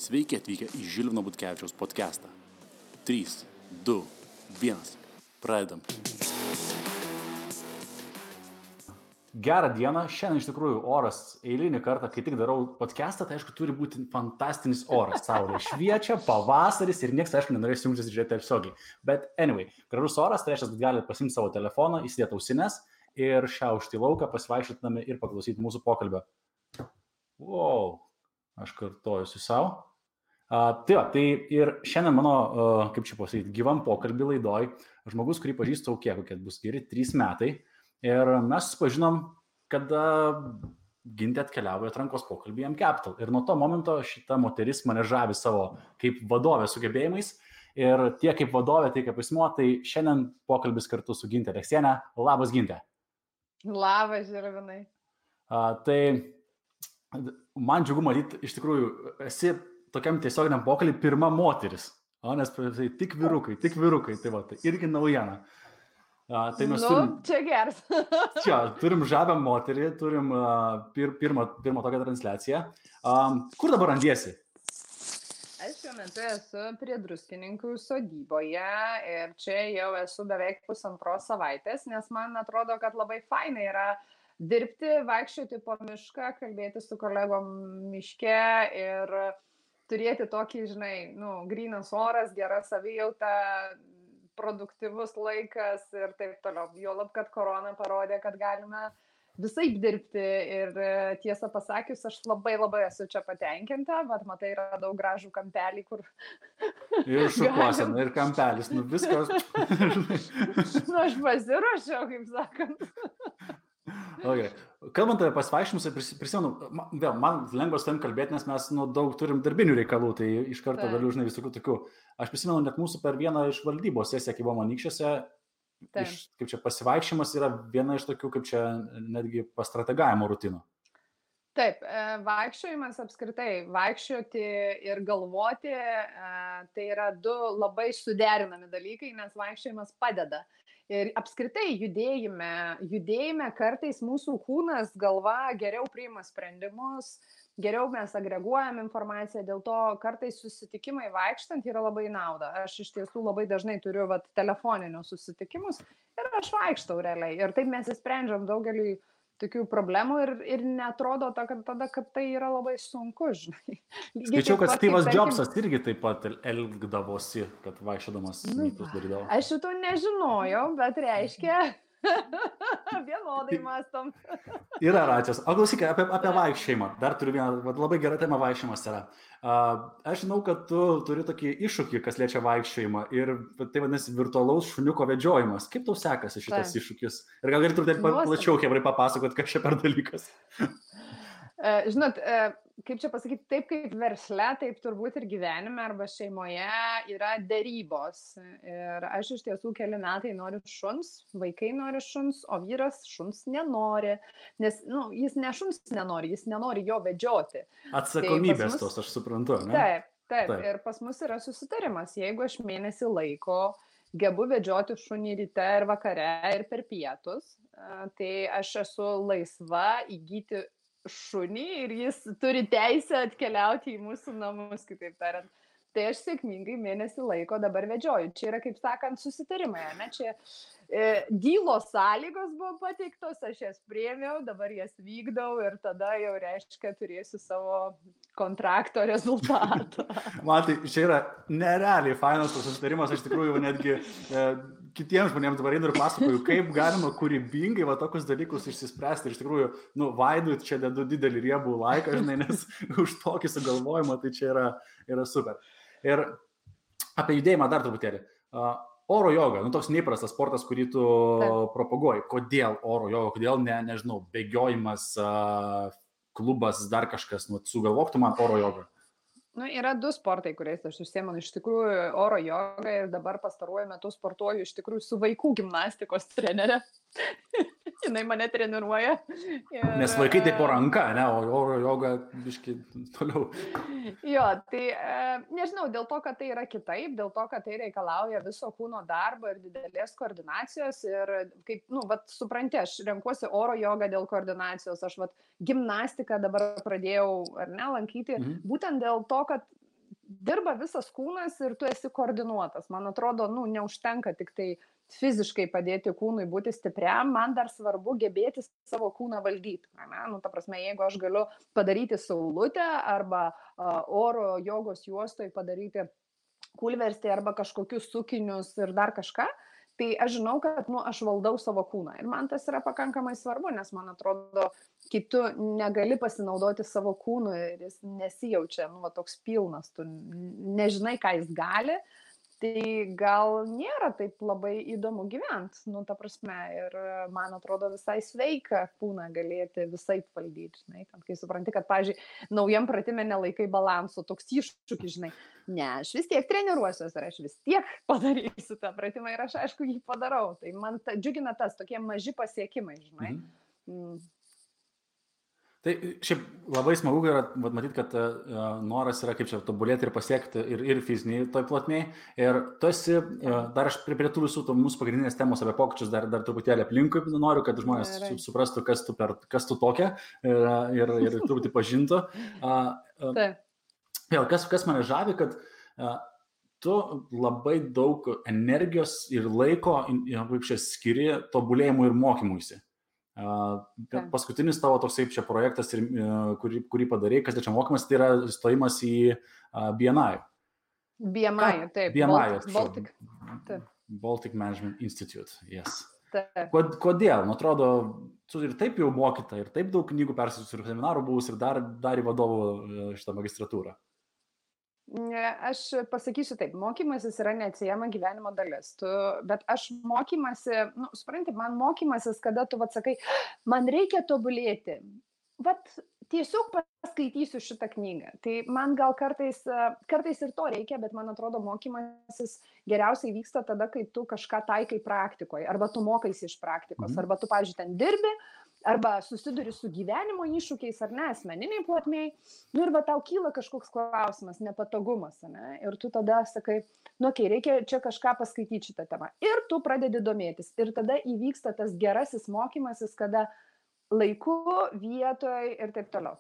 Sveiki atvykę į Žilvino Butkevičiaus podcastą. 3, 2, 1. Pradedam. Gerą dieną. Šiandien iš tikrųjų oras eilinį kartą, kai tik darau podcastą, tai aišku turi būti fantastinis oras. Saulė šviečia, pavasaris ir niekas, aišku, nenorės jungtis ir žiūrėti tiesiogiai. Bet anyway, gražus oras, tai reiškia, kad galite pasimti savo telefoną, įsidėti ausines ir šiaušti lauką, pasivaikščiotami ir paklausyti mūsų pokalbio. Wow, aš kartojusiu savo. Tai ir šiandien mano, kaip čia pasakyti, gyvam pokalbį laidoj, žmogus, kurį pažįstu kokie bus geri 3 metai. Ir mes susipažinom, kada Gintė atkeliavo į atrankos pokalbį į M-Capital. Ir nuo to momento šita moteris mane žavi savo kaip vadovė sugebėjimais. Ir tiek kaip vadovė, tiek kaip asmuo, tai šiandien pokalbis kartu su Gintė Aleksienė. Labas, Gintė. Labas, Žilvinai. Tai man džiugu matyti, iš tikrųjų, esi tokiam tiesioginiam pokalbį pirma moteris. Nes tai tik vyrukai, tai va, tai irgi naujiena. Tai mes čia geras. Čia, turim žavę moterį, turim pirmą tokią transliaciją. Kur dabar randiesi? Aš šiuo metu esu prie Druskininkų sodyboje ir čia jau esu beveik 1,5 savaitės, nes man atrodo, kad labai fainai yra dirbti, vaikščioti po mišką, kalbėti su kolegom miške ir turėti tokį, grynas oras, gera savijauta, produktyvus laikas ir taip toliau. Juolab, kad korona parodė, kad galime visaip dirbti ir tiesą pasakius, aš labai esu čia patenkinta, bet matai, yra daug gražų kampelį, kur... Ir šukuosena, ir kampelis, viskas. Aš pasiruošiau, kaip sakant. Okay. Kalbant apie pasivaikščiojimus, prisimenu, man lengva su tavim kalbėti, nes mes daug turim darbinių reikalų, tai iš karto galiu, visokių tokių. Aš prisimenu, net mūsų per vieną iš valdybos sesiją, kai buvom Anykščiuose, kaip čia pasivaikščiojimas yra viena iš tokių, kaip čia netgi pastrategavimo rutinų. Taip, vaikščiojimas apskritai, vaikščioti ir galvoti, tai yra 2 labai suderinami dalykai, nes vaikščiojimas padeda. Ir apskritai judėjime kartais mūsų kūnas, galva geriau priima sprendimus, geriau mes agreguojam informaciją, dėl to kartais susitikimai vaikštant yra labai nauda. Aš iš tiesų labai dažnai turiu telefoninius susitikimus ir aš vaikštau realiai. Ir taip mes įsprendžiam daugelį tokių problemų ir netrodo kad tai yra labai sunku, žinai. Skaičiau, kad Steve'as Jobsas irgi taip pat elgdavosi, kad vaikščiodamas mytus darydavo. Aš šito nežinojau, bet reiškia, vienodai mąstom. Yra račias. O klausyk, apie vaikščiojimą. Dar turiu vieną, labai gera tema vaikščiojimas yra. Aš žinau, kad tu turi tokį iššūkį, kas liečia vaikščiojimą ir tai vadinasi virtualaus šuniuko vedžiojimas. Kaip tau sekasi šitas iššūkis? Ir gal galėtum taip plačiau hebrai papasakot, kas čia per dalykas? Žinot, kaip čia pasakyti, taip kaip versle, taip turbūt ir gyvenime arba šeimoje yra derybos. Ir aš iš tiesų keli metai noriu šuns, vaikai nori šuns, o vyras šuns nenori. Nes jis ne šuns nenori, jis nenori jo vedžioti. Atsakomybės tos, aš suprantu, ne? Taip. Ir pas mus yra susitarimas. Jeigu aš mėnesį laiko gebu vedžioti šunį ryte ir vakare ir per pietus, tai aš esu laisva įgyti šunį ir jis turi teisę atkeliauti į mūsų namus, kitaip tariant. Tai aš sėkmingai mėnesį laiko dabar vedžioju. Čia yra, kaip sakant, susitarimai, ne? Čia dylos sąlygos buvo pateiktos, aš jas priėmiau, dabar jas vykdau ir tada jau reiškia turėsiu savo kontrakto rezultatą. Man tai čia yra nerealiai fainas tas susitarimas, aš tikrųjų netgi kitiems žmonėms dabar einu ir pasakoju, kaip galima kūrybingai tokius dalykus išsispręsti. Ir iš tikrųjų, Vaidui čia dedu didelį riebų laiką, žinai, nes už tokį sugalvojimą tai čia yra super. Ir apie judėjimą dar truputėlį. Oro joga, toks neįprastas sportas, kurį tu propaguoji. Kodėl oro joga, kodėl nežinau, bėgiojimas, klubas, dar kažkas, sugalvok tu man oro jogą. Yra 2 sportai, kuriais aš užsiemu. Iš tikrųjų, oro joga ir dabar pastaruoju metu sportuoju iš tikrųjų su vaikų gimnastikos trenerė. Jinai mane treniruoja. Nes vaikai tai po ranka, ne, o oro joga biškai toliau. Jo, tai nežinau, dėl to, kad tai yra kitaip, dėl to, kad tai reikalauja viso kūno darbo ir didelės koordinacijos ir kaip, supranti, aš renkuosi oro jogą dėl koordinacijos, aš gimnastiką dabar pradėjau, ar ne, lankyti, būtent dėl to, kad dirba visas kūnas ir tu esi koordinuotas. Man atrodo, neužtenka tik tai fiziškai padėti kūnui būti stipriam, man dar svarbu gebėti savo kūną valdyti. Ta prasme, jeigu aš galiu padaryti saulutę arba oro jogos juostoj padaryti kulverstį arba kažkokius sukinius ir dar kažką, tai aš žinau, kad aš valdau savo kūną. Ir man tas yra pakankamai svarbu, nes man atrodo, kai tu negali pasinaudoti savo kūnu ir jis nesijaučia toks pilnas, tu nežinai, ką jis gali, tai gal nėra taip labai įdomu gyventi, ta prasme, ir man atrodo visai sveika kūną galėti visai valdyti, žinai, kai supranti, kad, pavyzdžiui, naujam pratime nelaikai balanso, toks iššūkis, žinai, aš vis tiek treniruosiuos ir aš vis tiek padarysiu tą pratimą ir aš, aišku, jį padarau, tai man džiugina tas, tokie maži pasiekimai, žinai. Tai šiaip labai smagu yra matyti, kad noras yra kaip čia tobulėti ir pasiekti ir fiziniai toj plotmėj. Ir tu esi, dar aš prie tų visų mūsų pagrindinės temos apie pokyčius dar truputėlį aplinkui noriu, kad žmonės suprastų, kas tu tokia ir truputį pažintų. Vėl, kas mane žavi, kad tu labai daug energijos ir laiko skiri tobulėjimui ir mokymuisi. Paskutinis tavo toksai čia projektas, kurį padarei, kas čia mokymas, tai yra stojimas į BMI. BMI, taip. Baltic Management Institute, yes. Taip. Kodėl? Man atrodo, tu ir taip jau mokyta, ir taip daug knygų perskaičius ir seminarų buvus, ir dar į vadovų šitą magistratūrą. Aš pasakysiu taip, mokymasis yra neatsiejama gyvenimo dalis, bet aš mokymasi, supranti, man mokymasis, kada tu sakai, man reikia tobulėti, tiesiog paskaitysiu šitą knygą, tai man gal kartais ir to reikia, bet man atrodo mokymasis geriausiai vyksta tada, kai tu kažką taikai praktikoje, arba tu mokaisi iš praktikos, arba tu, pavyzdžiui, ten dirbi, arba susiduri su gyvenimo iššūkiais ar ne, asmeniniai plotmėj, ir tau kyla kažkoks klausimas, nepatogumas, ne, ir tu tada sakai, reikia čia kažką paskaityti šitą temą, ir tu pradedi domėtis, ir tada įvyksta tas gerasis mokymasis, kada laiku, vietoj ir taip toliau.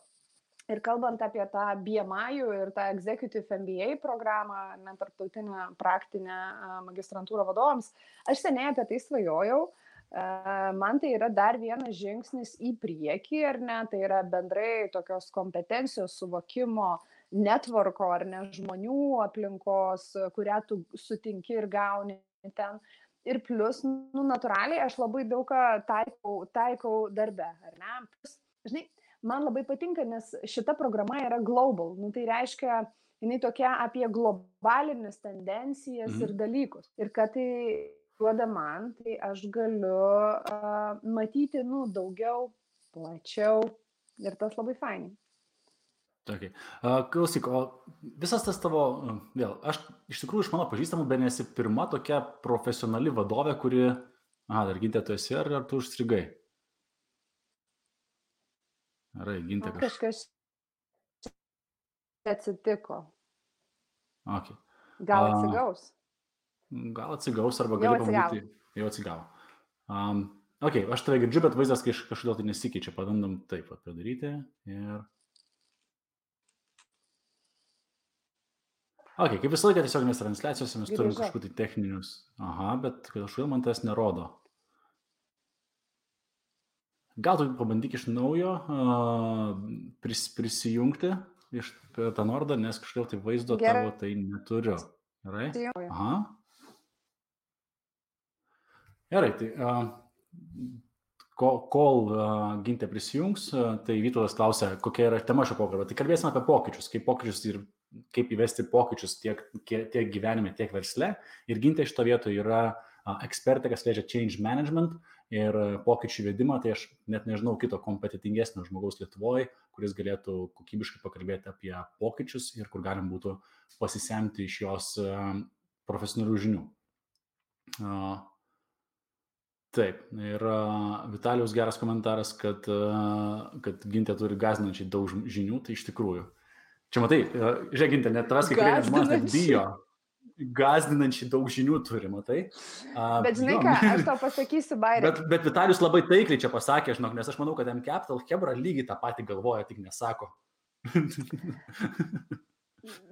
Ir kalbant apie tą BMI ir tą Executive MBA programą, tarptautinę praktinę magistrantūrą vadovams, aš seniai apie tai svajojau. Man tai yra dar vienas žingsnis į priekį, ar ne, tai yra bendrai tokios kompetencijos suvokimo networko, ar ne, žmonių aplinkos, kurią tu sutinki ir gauni ten. Ir plus, natūraliai, aš labai daug taikau darbe, ar ne. Žinai, man labai patinka, nes šita programa yra global, tai reiškia, jinai tokia apie globalines tendencijas ir dalykus. Ir kad tai duoda man, tai aš galiu matyti, daugiau, plačiau ir tas labai fainai. Okay. Klausyk, o visas tas tavo, vėl, aš iš tikrųjų iš mano pažįstamų, bet nesi pirma tokia profesionali vadovė, kuri, dar Gintė, tu esi, ar tu užstrigai? Gerai, Gintė kažkas atsitiko. Okay. Gal atsigaus? Gal atsigaus, arba gali pamūti. Jau atsigavo. Aš tave girdžiu, bet vaizdas kažkodėl tai nesikeičia. Pabandom taip padaryti. Ir... kaip visą laiką tiesioginės transliacijose mes turim kažkokių tai techninius. Bet kažkodėl man tas nerodo. Gal tu pabandyk iš naujo prisijungti iš tą nordą, nes kažkodėl tai vaizdo tavo tai neturiu. Gerai? Gerai, tai kol Gintė prisijungs, tai Vytautas klausia, kokia yra tema šio pokalbio. Tai kalbėsime apie pokyčius ir kaip įvesti pokyčius tiek gyvenime, tiek versle. Ir Gintė šito vietoje yra ekspertė, kas liečia change management ir pokyčių įvedimą. Tai aš net nežinau kito kompetitingesnio žmogaus Lietuvoje, kuris galėtų kokybiškai pakalbėti apie pokyčius ir kur galim būtų pasisemti iš jos profesionalių žinių. Taip, ir Vitalijos geras komentaras, kad Gintė turi gąsdinančiai daug žinių, tai iš tikrųjų. Čia matai, žiūrėk, Gintė, net tavęs kai kurie žmonės net bijo. Gąsdinančiai daug žinių turi, matai. Bet žinai ką, aš tau pasakysiu, Bairė. Bet Vitalijus labai taikliai čia pasakė, nes aš manau, kad M-Capital Hebra lygiai tą patį galvoja, tik nesako.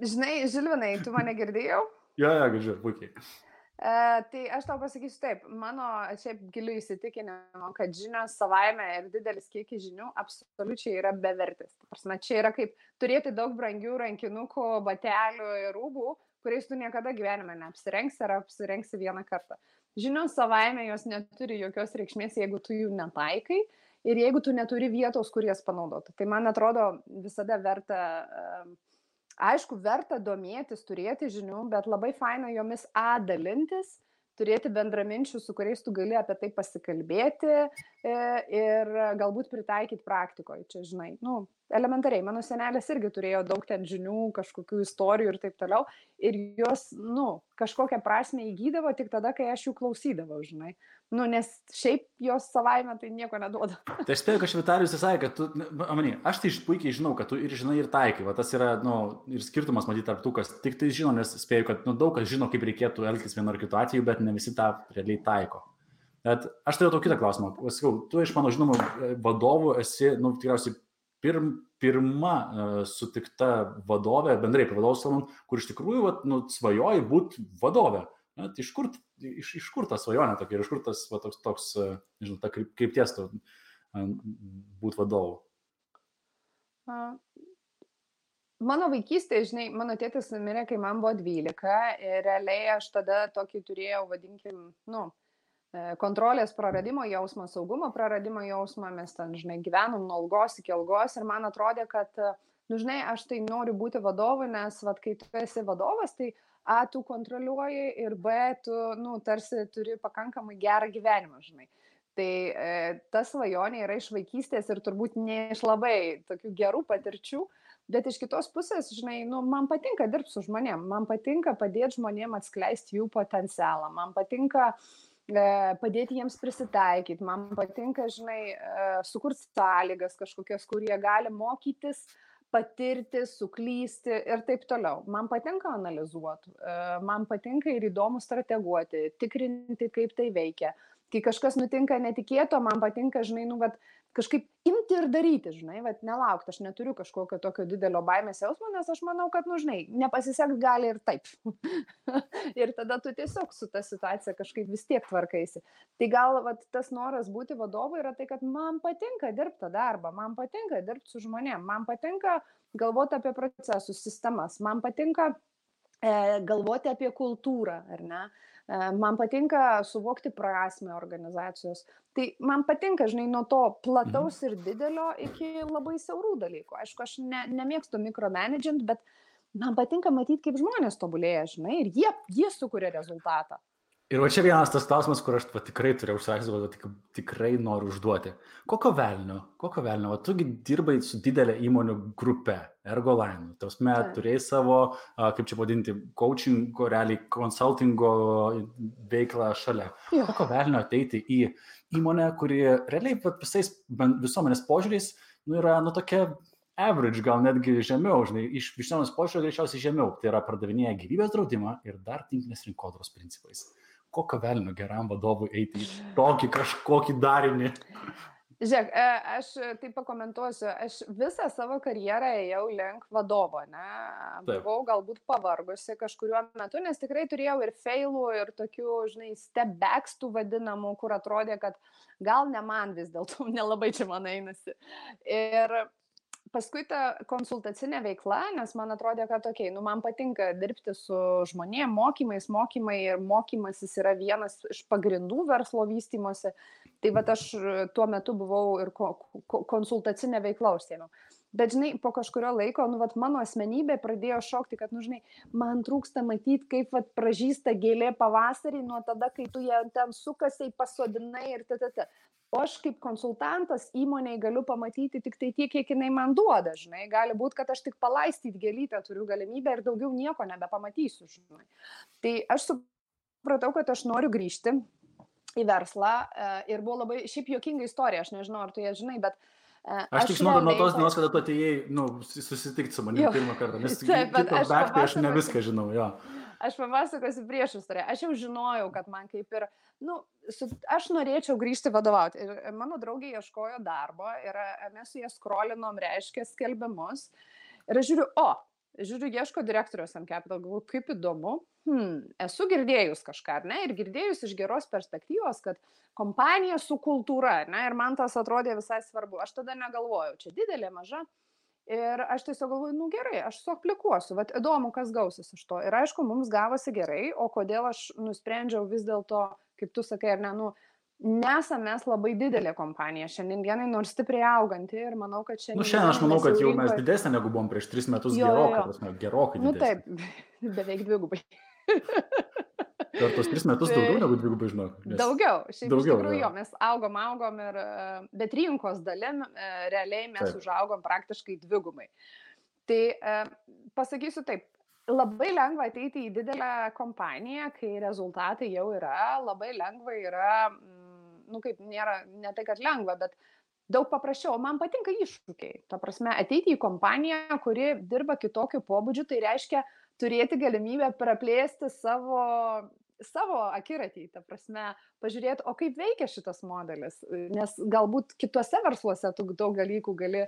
Žinai, Žilvinai, tu mane girdėjau? Jo, girdžiu, puikiai. Tai aš tau pasakysiu taip, mano šiaip giliu įsitikinimu, kad žinios savaime ir didelis kiekis žinių absoliučiai yra bevertis. Prasme, čia yra kaip turėti daug brangių rankinukų, batelių ir rūbų, kuriais tu niekada gyvenime neapsirengsi ar apsirengsi vieną kartą. Žinios savaime jos neturi jokios reikšmės, jeigu tu jų netaikai ir jeigu tu neturi vietos, kur jas panaudoti. Tai man atrodo visada verta... Aišku, verta domėtis, turėti žinių, bet labai faina jomis dalintis, turėti bendraminčių, su kuriais tu gali apie tai pasikalbėti ir galbūt pritaikyti praktikoje. Čia, žinai, elementariai, mano senelis irgi turėjo daug ten žinių, kažkokių istorijų ir taip toliau, ir jos, kažkokią prasme įgydavo tik tada, kai aš jų klausydavau, žinai. Nes šiaip jos savaime tai nieko neduoda. Tai aš spėjau, kad Vitalijus sakė, kad tu, aš tai puikiai žinau, kad tu ir žinai, ir taikai. Va, tas yra, ir skirtumas matyti tarp tų, kas tik tai žino, nes spėjau, kad daug kas žino, kaip reikėtų elgtis vienu ar kitu atveju, bet ne visi tą realiai taiko. Bet aš turėjau kitą klausimą. Sakau, tu iš mano žinomų vadovų esi, tikriausiai pirma sutikta vadovė, bendrai apie vadovus kalbant, kur iš tikrųjų svajoji būti vadovė. Iš kur ta svajonė tokia ir iš kur tas toks, nežinau, ta krypties būti vadovu? Mano vaikystėje, žinai, mano tėtis mirė, kai man buvo 12 ir realiai aš tada tokį turėjau, vadinkim, kontrolės praradimo jausmą, saugumo praradimo jausmą, mes ten, žinai, gyvenom nuo algos iki algos ir man atrodė, kad, žinai, aš tai noriu būti vadovu, nes, kai tu esi vadovas, tai tu kontroliuoji ir B, tu, tarsi turi pakankamai gerą gyvenimą, žinai. Tai ta svajonė yra iš vaikystės ir turbūt ne iš labai tokių gerų patirčių, bet iš kitos pusės, žinai, man patinka dirbti su žmonėm, man patinka padėti žmonėm atskleisti jų potencialą, man patinka padėti jiems prisitaikyti, man patinka, žinai, sukurti sąlygas kažkokias, kur jie gali mokytis, patirti, suklysti ir taip toliau. Man patinka analizuoti, man patinka ir įdomu strateguoti, tikrinti, kaip tai veikia. Kai kažkas nutinka netikėto, man patinka, žinai, kažkaip imti ir daryti, žinai, nelaukti, aš neturiu kažkokio tokio didelio baimės jausmo, nes aš manau, kad, žinai, nepasiseks gali ir taip. Ir tada tu tiesiog su ta situacija kažkaip vis tiek tvarkaisi. Tai gal tas noras būti vadovu yra tai, kad man patinka dirbti tą darbą, man patinka dirbti su žmonėm, man patinka galvoti apie procesus, sistemas, man patinka galvoti apie kultūrą, ar ne? Man patinka suvokti prasmę organizacijos. Tai man patinka, žinai, nuo to plataus ir didelio iki labai siaurų dalykų. Aišku, aš nemėgstu mikromanagint, bet man patinka matyti, kaip žmonės tobulėja, žinai, ir jie sukuria rezultatą. Ir va čia vienas tas klausimas, kur aš tikrai turėjau užsakyti, tikrai noriu užduoti. Kokio velnio? Va, tugi dirbai su didelė įmonių grupe, Ergoline. Tausme, turėjai savo, kaip čia vadinti, coachingo, realiai konsultingo veiklą šalia. Kokio velnio ateiti į įmonę, kuri realiai visais visuomenės požiūriais yra, tokia average, gal netgi žemiau, žinai, iš visuomenės požiūrio greičiausiai žemiau. Tai yra pardavinėja gyvybės draudimą ir dar tinklinės rinkodaros principais. Kokio velnio geram vadovui eiti į tokį kažkokį darinį? Žiūrėk, aš taip pakomentuosiu, aš visą savo karjerą ėjau link vadovo, ne? Buvau galbūt pavargusi kažkuriuo metu, nes tikrai turėjau ir failų, ir tokių, žinai, step backs tų vadinamų, kur atrodė, kad gal ne man vis dėlto, nelabai čia man einasi. Ir paskui ta konsultacinė veikla, nes man atrodė, kad man patinka dirbti su žmonėm, mokymai ir mokymasis yra vienas iš pagrindų verslo vystymosi. Tai aš tuo metu buvau ir konsultacinė veikla užsiėmiau. Bet, žinai, po kažkurio laiko, mano asmenybė pradėjo šokti, kad, žinai, man trūksta matyti, kaip pražysta gėlė pavasarį nuo tada, kai tu ją ten sukasiai, pasodinai ir t. O aš kaip konsultantas įmonėje galiu pamatyti tik tai tiek, kiek jinai man duoda, žinai. Gali būti, kad aš tik palaistyti gėlytę turiu galimybę ir daugiau nieko nebepamatysiu, žinai. Tai aš supratau, kad aš noriu grįžti į verslą ir buvo labai šiaip juokinga istorija, aš nežinau, ar tu ją žinai, bet aš tik žinau nuo tos dienos, kada tu atėjai susitikti su manimi pirmą kartą, nes aš ne viską žinau, jo. Aš papasakosiu prieš istoriją. Aš jau žinojau, kad man kaip ir, aš norėčiau grįžti vadovauti. Ir mano draugė ieškojo darbo ir mes su jie scrollinom, reiškia, skelbimus. Ir aš žiūriu, žiūriu, ieško direktorius M Capital, galvoju, kaip įdomu. Esu girdėjus kažką, ar ne? Ir girdėjus iš geros perspektyvos, kad kompanija su kultūra, ar ne? Ir man tas atrodė visai svarbu. Aš tada negalvojau, čia didelė, maža. Ir aš tiesiog galvoju, nu gerai, aš suaplikuosiu, vat įdomu, kas gausis iš to. Ir aišku, mums gavosi gerai, o kodėl aš nusprendžiau vis dėlto, kaip tu sakai, ar ne, nu, nesame mes labai didelė kompanija šiandien dienai, nors stipriai auganti ir manau, kad šiandien... Nu, šiandien aš manau, kad jau mes didesnė negu buvom prieš 3 metus, gerokai didesnė. Nu taip, beveik dvigubai. Per tos 3 metus daugiau negu dvigubai, žinok. Daugiau, šiaip iš tikrųjų jo, mes augom ir, bet rinkos dalim realiai mes užaugom praktiškai dvigubai. Tai pasakysiu taip, labai lengva ateiti į didelę kompaniją, kai rezultatai jau yra, labai lengva yra, nu kaip nėra, ne tai kad lengva, bet daug paprasčiau. Man patinka iššūkiai. Ta prasme, ateiti į kompaniją, kuri dirba kitokiu pobūdžiu, tai reiškia turėti galimybę praplėsti savo akiratį, ta prasme, pažiūrėti, o kaip veikia šitas modelis, nes galbūt kitose versluose tu daug dalykų gali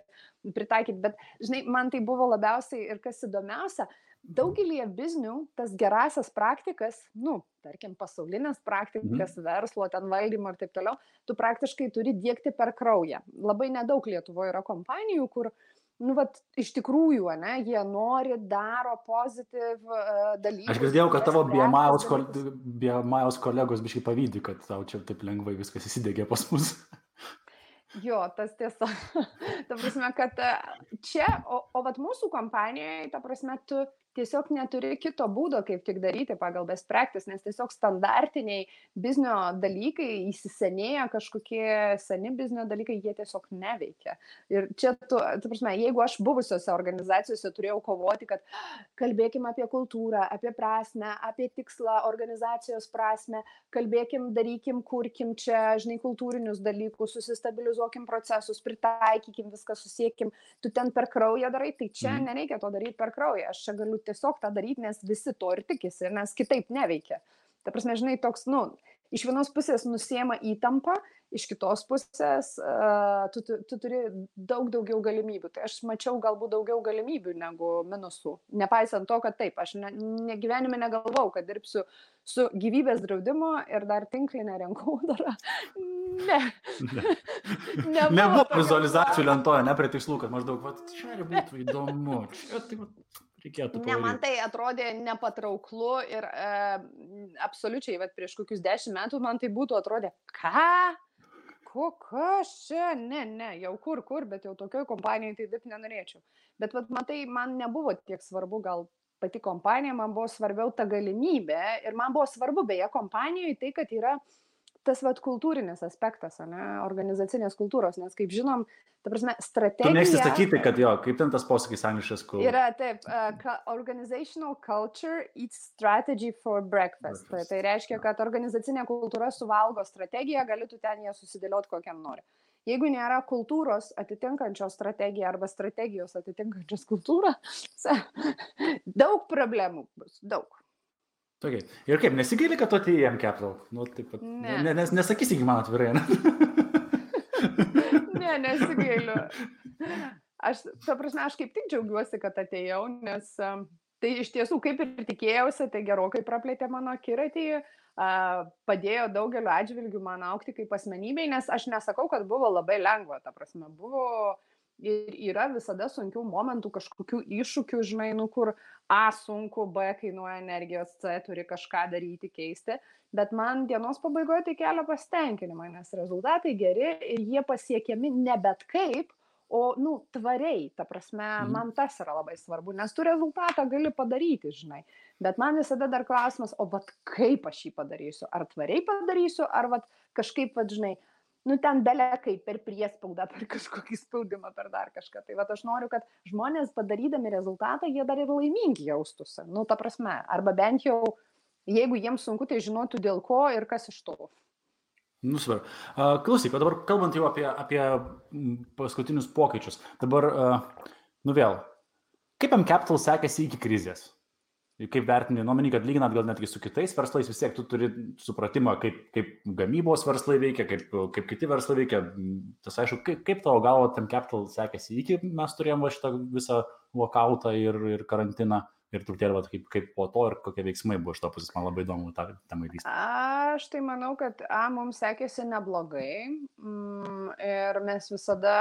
pritaikyti, bet, žinai, man tai buvo labiausiai ir kas įdomiausia, daugelį biznių tas gerasias praktikas, nu, tarkim, pasaulinės praktikas, verslo, ten valdymo ir taip toliau, tu praktiškai turi diegti per kraują. Labai nedaug Lietuvoje yra kompanijų, kur nu, vat, iš tikrųjų, ne, jie nori, daro pozityv dalykus. Aš girdėjau, kad tavo BMI kolegos biškai pavydi, kad tau čia taip lengvai viskas įsidegė pas mus. Jo, tas tiesa. Ta prasme, kad čia, o vat mūsų kompanijoje, ta prasme, tu tiesiog neturi kito būdo, kaip tik daryti pagal best practice, nes tiesiog standartiniai biznio dalykai, įsisenėję kažkokie seni biznio dalykai, jie tiesiog neveikia. Ir čia, ta prasme, jeigu aš buvusiose organizacijose turėjau kovoti, kad kalbėkim apie kultūrą, apie prasmę, apie tikslą, organizacijos prasmę, kalbėkim, darykim, kurkim čia, žinai, kultūrinius dalykus, susistabilizuokim procesus, pritaikykim viską, susiekim, tu ten per kraują darai, tai čia nereikia to daryti per kraują. Aš čia galiu tiesiog tą daryti, nes visi to ir tikisi, nes kitaip neveikia. Ta prasme, žinai, toks, nu, iš vienos pusės nusiema įtampa, iš kitos pusės tu turi daug daugiau galimybių. Tai aš mačiau galbūt daugiau galimybių negu minusų. Nepaisant to, kad taip, aš gyvenime negalvau, kad dirbsiu su gyvybės draudimu ir dar tinklinę rinkodarą. Ne. Nebuvo vizualizacijų lentoje, ne prie tikslų, kad maždaug, va, čia būtų įdomu. Čia tai reikėtų padaryti. Ne, man tai atrodė nepatrauklu ir absoliučiai, bet prieš kokius 10 metų man tai būtų atrodė, ką? Kas čia? Ne, jau kur, bet jau tokioj kompanijai tai dirbti nenorėčiau. Bet vat, matai, man nebuvo tiek svarbu gal pati kompanija, man buvo svarbiau ta galimybė ir man buvo svarbu beje kompanijoje tai, kad yra tas vat kultūrinis aspektas, ne, organizacinės kultūros, nes kaip žinom, ta prasme, strategija... Tu mėgsti sakyti, kad jo, kaip ten tas posakis angliškas, kur... Yra taip, organizational culture eats strategy for breakfast. Tai reiškia, kad organizacinė kultūra suvalgo strategiją, gali tu ten ją susidėlioti kokiam nori. Jeigu nėra kultūros atitinkančios strategiją arba strategijos atitinkančios kultūrą, daug problemų bus, daug. Okay. Ir kaip, nesigaili, kad tu atėjai į M Capital? Nu, taip pat, nesakysi iki man atvirai, ne? Ne, nesigailiu. Ta prasme, aš kaip tik džiaugiuosi, kad atėjau, nes tai iš tiesų, kaip ir tikėjausi, tai gerokai praplėtė mano akiratį, padėjo daugeliu atžvilgių man augti kaip asmenybei, nes aš nesakau, kad buvo labai lengva, ta prasme, buvo... Ir yra visada sunkių momentų, kažkokių iššūkių, žinai, nu kur A sunku, B kainuoja energijos, C turi kažką daryti, keisti, bet man dienos pabaigoje tai kelia pasitenkinimą, nes rezultatai geri ir jie pasiekiami ne bet kaip, o, nu, tvariai, ta prasme, man tas yra labai svarbu, nes tu rezultatą gali padaryti, žinai, bet man visada dar klausimas, o vat kaip aš jį padarysiu, ar tvariai padarysiu, ar vat kažkaip, vat, žinai, nu ten belekai per priespaudą, per kažkokį spaudimą, per dar kažką. Tai vat aš noriu, kad žmonės padarydami rezultatą, jie dar ir laimingi jaustųsi. Nu, ta prasme, arba bent jau, jeigu jiems sunku, tai žinotų dėl ko ir kas iš to. Nu, svarbu. Klausyk, o dabar kalbant jau apie paskutinius pokyčius. Dabar, nu vėl, kaip M Capital sekėsi iki krizės? Kaip vertini, nuomenį, kad lyginant gal netgi su kitais verslais, vis tiek tu turi supratimą, kaip gamybos verslai veikia, kaip kiti verslai veikia. Tas aišku, kaip tavo galvo M Capital sekėsi iki mes turėjom šitą visą lokautą ir karantiną ir truputėlį kaip po to ir kokie veiksmai buvo iš to pusės, man labai įdomu tą temą įlįsti. Aš tai manau, kad mums sekėsi neblogai ir mes visada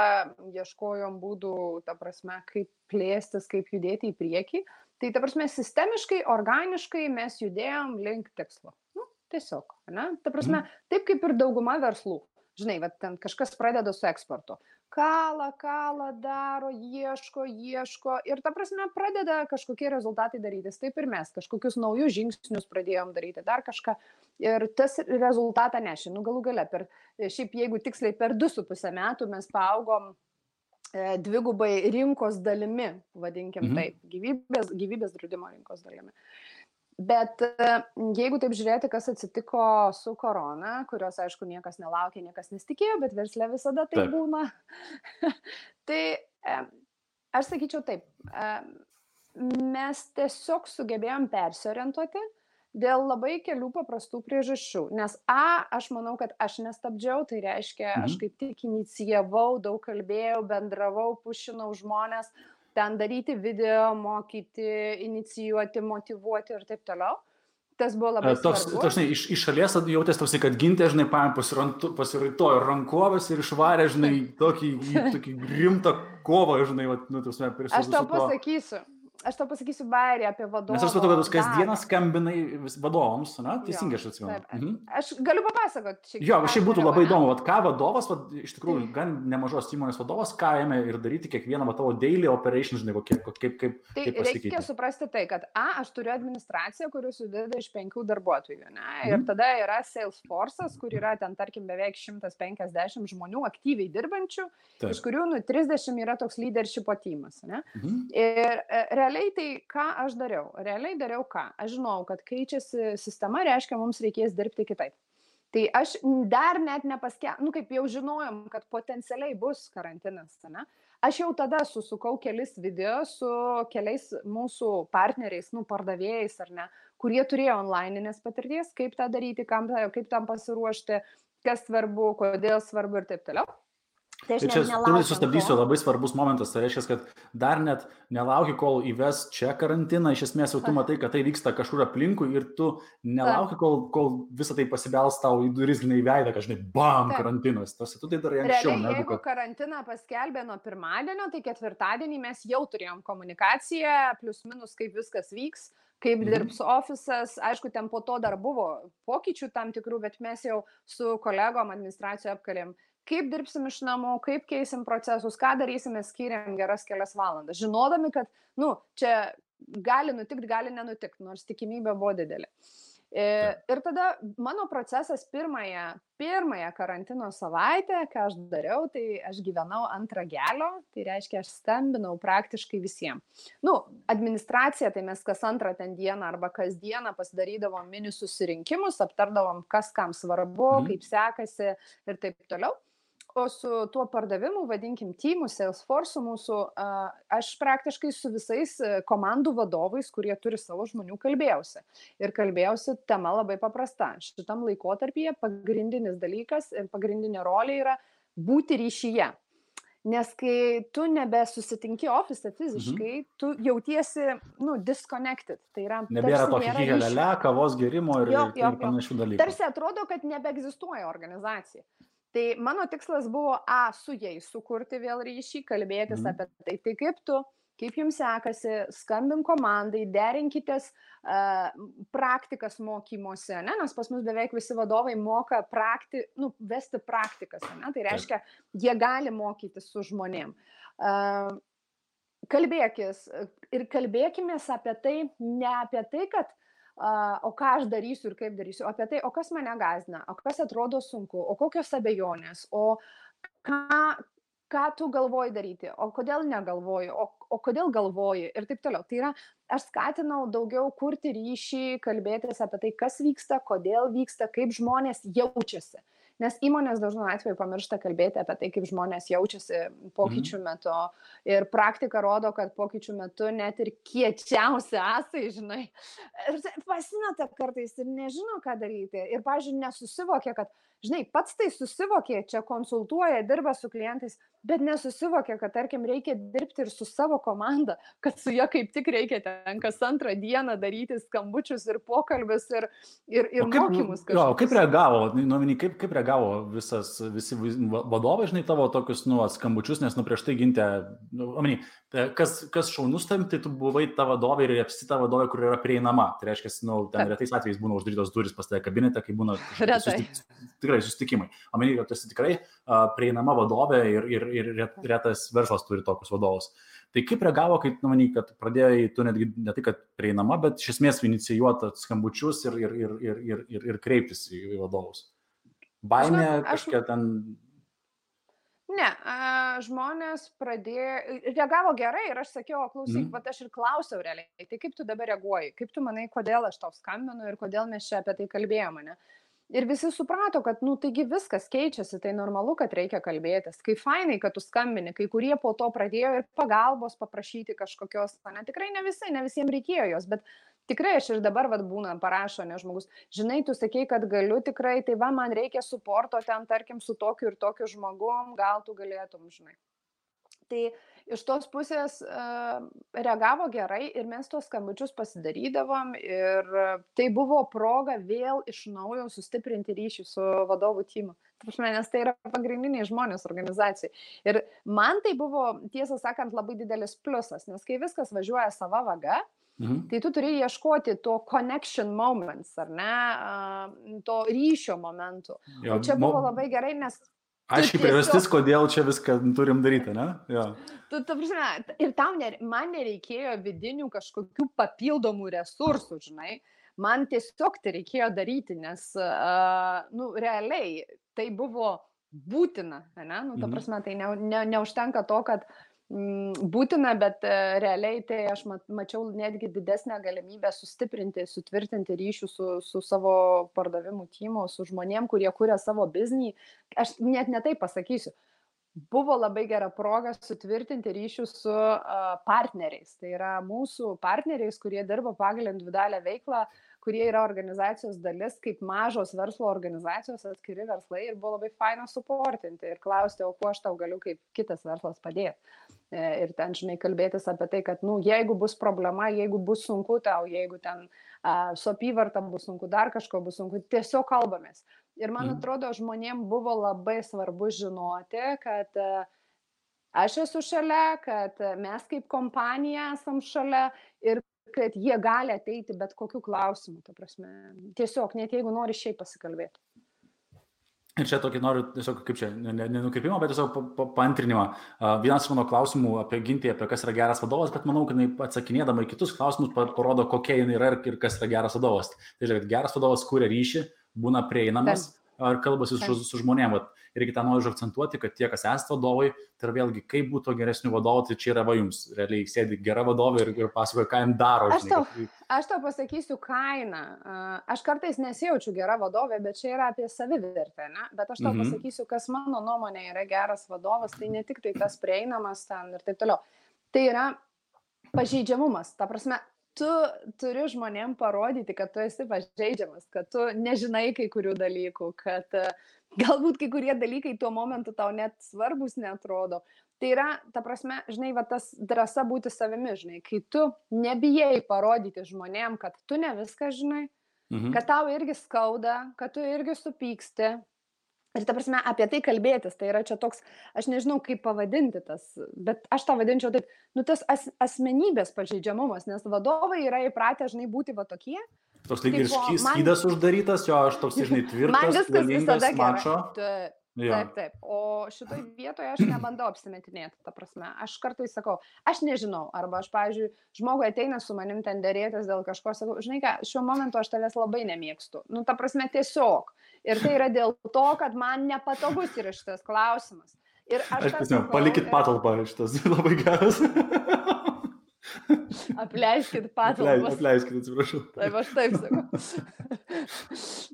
ieškojom būdų, ta prasme, kaip plėstis, kaip judėti į priekį. Tai ta prasme, sistemiškai, organiškai mes judėjom link tikslo. Tiesiog, ne? Ta prasme, taip kaip ir dauguma verslų. Žinai, va, ten kažkas pradeda su eksportu. Kala, daro, ieško ir ta prasme pradeda kažkokie rezultatai darytis. Taip ir mes kažkokius naujus žingsnius pradėjom daryti, dar kažką. Ir tas rezultatą nešė. Galų gale, šiaip jeigu tiksliai per 2,5 metų mes paaugom dvigubai rinkos dalimi, vadinkim taip, gyvybės draudimo rinkos dalimi. Bet jeigu taip žiūrėti, kas atsitiko su korona, kurios, aišku, niekas nelaukė, niekas nesitikėjo, bet versle visada tai būna, tai aš sakyčiau taip, mes tiesiog sugebėjom persiorientuoti dėl labai kelių paprastų priežasčių. Nes aš manau, kad aš nestabdžiau, tai reiškia, aš kaip tik inicijavau, daug kalbėjau, bendravau, pušinau žmonės, ten daryti video, mokyti, inicijuoti, motyvuoti ir taip toliau. Tas buvo labai svarbu. Toks, iš šalies jautės toksai, kad Gintė, žinai, pasiraitojo rankovės ir išvarė, žinai, tokį rimtą kovą, žinai, Aš tau pasakysiu bairį apie vadovą. Nes aš supratau, kad tu kasdieną skambinai vadovams, na, teisingai aš atsimenu. Aš galiu papasakoti. Jo, šiaip būtų labai įdomu, ką vadovas, iš tikrųjų, gan nemažos įmonės vadovas, ką ėmė ir daryti kiekvieną tavo daily operation, žinai, kaip pasikeitė. Tai reikia suprasti tai, kad aš turiu administraciją, kuri susideda iš 5 darbuotojų, ne? Ir tada yra Salesforce'as, kur yra ten, tarkim, beveik 150 žmonių aktyviai dirbančių, iš kurių 30 yra toks leadership tymas, ne? Ir realiai tai ką aš dariau? Realiai dariau ką? Aš žinau, kad keičiasi sistema, reiškia, mums reikės dirbti kitaip. Tai aš dar net kaip jau žinojom, kad potencialiai bus karantinas, ne? Aš jau tada susukau kelis video su keliais mūsų partneriais, pardavėjais ar ne, kurie turėjo online'inės patirties, kaip tą daryti, kaip tam pasiruošti, kas svarbu, kodėl svarbu ir taip toliau. Tai čia sustabdysiu, labai svarbus momentas, tai reiškia, kad dar net nelauki, kol įves čia karantiną, iš esmės jau tu matai, kad tai vyksta kažkur aplinkui ir tu nelauki, kol visą tai pasibels tau į duris, žinai, veidą, kad, žinai, bam, karantinas. Tu tai darai anksčiau. Realiai, jeigu karantiną paskelbė nuo pirmadienio, tai ketvirtadienį mes jau turėjom komunikaciją, plius minus, kaip viskas vyks, kaip dirbs ofisas. Aišku, ten po to dar buvo pokyčių tam tikrų, bet mes jau su kolegom administracijoje apkalėm, kaip dirbsim iš namų, kaip keisim procesus, ką darysime, skiriam geras kelias valandas, žinodami, kad, čia gali nutikti, gali nenutikti, nors tikimybė buvo didelė. Ir tada mano procesas pirmąją karantino savaitę, ką aš dariau, tai aš gyvenau ant ragelio, tai reiškia, aš skambinau praktiškai visiems. Administracija, tai mes kas antrą ten dieną arba kas dieną pasidarydavom mini susirinkimus, aptardavom, kas kam svarbu, kaip sekasi ir taip toliau. O su tuo pardavimu, vadinkim, teamų, Salesforce'u mūsų, aš praktiškai su visais komandų vadovais, kurie turi savo žmonių, kalbėjausi. Ir kalbėjausi tema labai paprasta. Šitam laikotarpyje pagrindinis dalykas ir pagrindinė rolė yra būti ryšyje. Nes kai tu nebesusitinki ofise fiziškai, tu jautiesi, disconnected. Tai yra, nebėra tokio hihelele, kavos gerimo ir panašių dalykų. Tarsi atrodo, kad nebeegzistuoja organizacija. Tai mano tikslas buvo su jais sukurti vėl ryšį, kalbėtis apie tai. Tai kaip jums sekasi, skambink komandai, derinkitės praktikas mokymuose, ne? Nes pas mus beveik visi vadovai moka vesti praktikas, ne? Tai reiškia, jie gali mokytis su žmonėm. Kalbėkis ir kalbėkimės apie tai, ne apie tai, kad o ką aš darysiu ir kaip darysiu, apie tai, o kas mane gąsdina, o kas atrodo sunku, o kokios abejonės, o ką tu galvoji daryti, o kodėl negalvoji, o kodėl galvoji ir taip toliau. Tai yra, aš skatinau daugiau kurti ryšį, kalbėtis apie tai, kas vyksta, kodėl vyksta, kaip žmonės jaučiasi. Nes įmonės dažnu atveju pamiršta kalbėti apie tai, kaip žmonės jaučiasi pokyčių metu. Ir praktika rodo, kad pokyčių metu net ir kiečiausi asai, žinai, pasimeta kartais ir nežino, ką daryti. Ir, pavyzdžiui, nesusivokia, kad, žinai, pats tai susivokė, čia konsultuoja, dirba su klientais, bet nesusivokė, kad, tarkim, reikia dirbti ir su savo komanda, kad su ja kaip tik reikia ten kas antrą dieną daryti skambučius ir pokalbius ir mokymus. Jo, kaip reagavo, kaip reagavo visi vadovai, žinai, tavo tokius, skambučius, nes, prieš tai gintė, kas šaunus tam, tai tu buvai ta vadovė ir apsi ta vadovė, kur yra prieinama. Tai reiškia, ten retais atvejais būna uždarytos duris pas tave kabinete, kai būna tikrai susitikimai. Kad tu esi tikrai prieinama vadovė ir retas verslas turi tokius vadovus. Tai kaip reagavo, kai, kad pradėjai, tu netgi ne tai, kad prieinama, bet iš esmės inicijuoti skambučius ir kreiptis į vadovus? Baimė kažkiek ten... Ne, žmonės reagavo gerai ir aš sakiau, klausyk, bet aš ir klausiau realiai, tai kaip tu dabar reaguoji, kaip tu manai, kodėl aš tau skambinu ir kodėl mes čia apie tai kalbėjome, ne? Ir visi suprato, kad, taigi viskas keičiasi, tai normalu, kad reikia kalbėtis. Kai fainai, kad tu skambini, kai kurie po to pradėjo ir pagalbos paprašyti kažkokios, ne, tikrai ne visiems reikėjo jos, bet tikrai aš ir dabar būna parašo, ne žmogus, žinai, tu sakei, kad galiu tikrai, tai man reikia suporto ten, tarkim, su tokiu ir tokiu žmogum, gal tu galėtum, žinai. Tai iš tos pusės reagavo gerai ir mes tos skambučius pasidarydavom ir tai buvo proga vėl iš naujo sustiprinti ryšį su vadovų timu. Nes tai yra pagrindiniai žmonės organizacijai. Ir man tai buvo, tiesą sakant, labai didelis pliusas, nes kai viskas važiuoja sava vaga, tai tu turi ieškoti to connection moments, ar ne, to ryšio momentų. O čia buvo labai gerai, nes... Aiškiai priežastis, kodėl čia viską turim daryti, ne? Ja. Ir man nereikėjo vidinių kažkokių papildomų resursų, žinai. Man tiesiog tai reikėjo daryti, nes, realiai tai buvo būtina, ne? Ta prasme, tai neužtenka to, kad būtina, bet realiai tai aš mačiau netgi didesnę galimybę sustiprinti, sutvirtinti ryšių su savo pardavimų timu, su žmonėm, kurie kuria savo biznį. Aš net ne taip pasakysiu. Buvo labai gera proga sutvirtinti ryšių su partneriais. Tai yra mūsų partneriais, kurie dirba pagal individualią veiklą, kurie yra organizacijos dalis, kaip mažos verslo organizacijos, atskiri verslai, ir buvo labai faina suportinti ir klausti, o kuo aš tau galiu kaip kitas verslas padėti. Ir ten, žinai, kalbėtis apie tai, kad, jeigu bus problema, jeigu bus sunku tau, jeigu ten su apyvarta bus sunku, dar kažko bus sunku, tiesiog kalbamės. Ir man atrodo, žmonėm buvo labai svarbu žinoti, kad aš esu šalia, kad mes kaip kompanija esam šalia ir kad jie gali ateiti bet kokiu klausimu, ta prasme. Tiesiog, net jeigu nori šiaip pasikalbėti. Ir čia tokį noriu, tiesiog, kaip čia, nenukreipimą, bet tiesiog paantrinimą. Vienas mano klausimų apie Gintį, apie kas yra geras vadovas, bet manau, kad jinai atsakinėdama į kitus klausimus parodo, kokia jinai yra ir kas yra geras vadovas. Tai žiūrėk, geras vadovas kuria ryšį, būna prieinamas ar kalbasi su žmonėm. Reikia tą noriu akcentuoti, kad tie, kas esate vadovai, tai vėlgi, kaip būtų geresnių vadovų, tai čia yra jums. Realiai sėdi gera vadovė ir pasakoja, ką jam daro. Aš tau pasakysiu kainą. Aš kartais nesijaučiu gera vadovė, bet čia yra apie savivertę, ne? Bet aš tau pasakysiu, kas mano nuomonė yra geras vadovas, tai ne tik tai tas prieinamas ten ir taip toliau. Tai yra pažeidžiamumas. Ta prasme, tu turi žmonėm parodyti, kad tu esi pažeidžiamas, kad tu nežinai kai kurių dalykų, kad galbūt kai kurie dalykai tuo momentu tau net svarbus neatrodo. Tai yra, ta prasme, žinai, tas drąsa būti savimi, žinai, kai tu nebijai parodyti žmonėm, kad tu ne viską žinai, kad tau irgi skauda, kad tu irgi supyksti. Ir ta prasme, apie tai kalbėtis, tai yra čia toks, aš nežinau, kaip pavadinti tas, bet aš tą vadinčiau taip, tas asmenybės pažeidžiamumas, nes vadovai yra įpratę, žinai, būti va tokie. Toks lyg ir skydas uždarytas, jo, aš toks, žinai, tvirtas, galingas, mačo. Taip. O šitoj vietoje aš nebandau apsimetinėti, ta prasme. Aš kartais sakau, aš nežinau, arba aš, pavyzdžiui, žmogui ateina su manim ten derėtis dėl kažko, sakau, žinai ką, šiuo momentu aš tavęs labai nemėgstu. Ta prasme, tiesiog. Ir tai yra dėl to, kad man nepatogus yra šitas klausimas. Ir aš sakau, palikit patalpą, šitas labai geras. Apleiskit patalpas. Apleiskit, atsiprašau. Taip, aš taip sakau.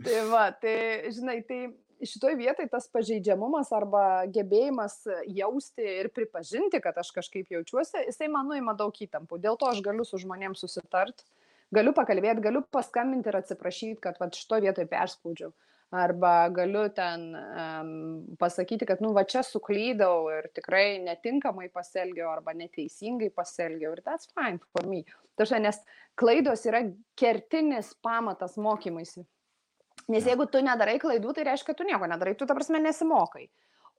Tai va, tai, žinai, tai šitoj vietai tas pažeidžiamumas arba gebėjimas jausti ir pripažinti, kad aš kažkaip jaučiuosi, jisai man nuima daug įtampų. Dėl to aš galiu su žmonėms susitart, galiu pakalbėti, galiu paskambinti ir atsiprašyti, kad šitoj vietoj perspaudžiau. Arba galiu ten pasakyti, kad, va čia suklydau ir tikrai netinkamai pasielgiau arba neteisingai pasielgiau. Ir that's fine for me. Tačiau, nes klaidos yra kertinis pamatas mokymuisi. Nes jeigu tu nedarai klaidų, tai reiškia, kad tu nieko nedarai, tu ta prasme nesimokai.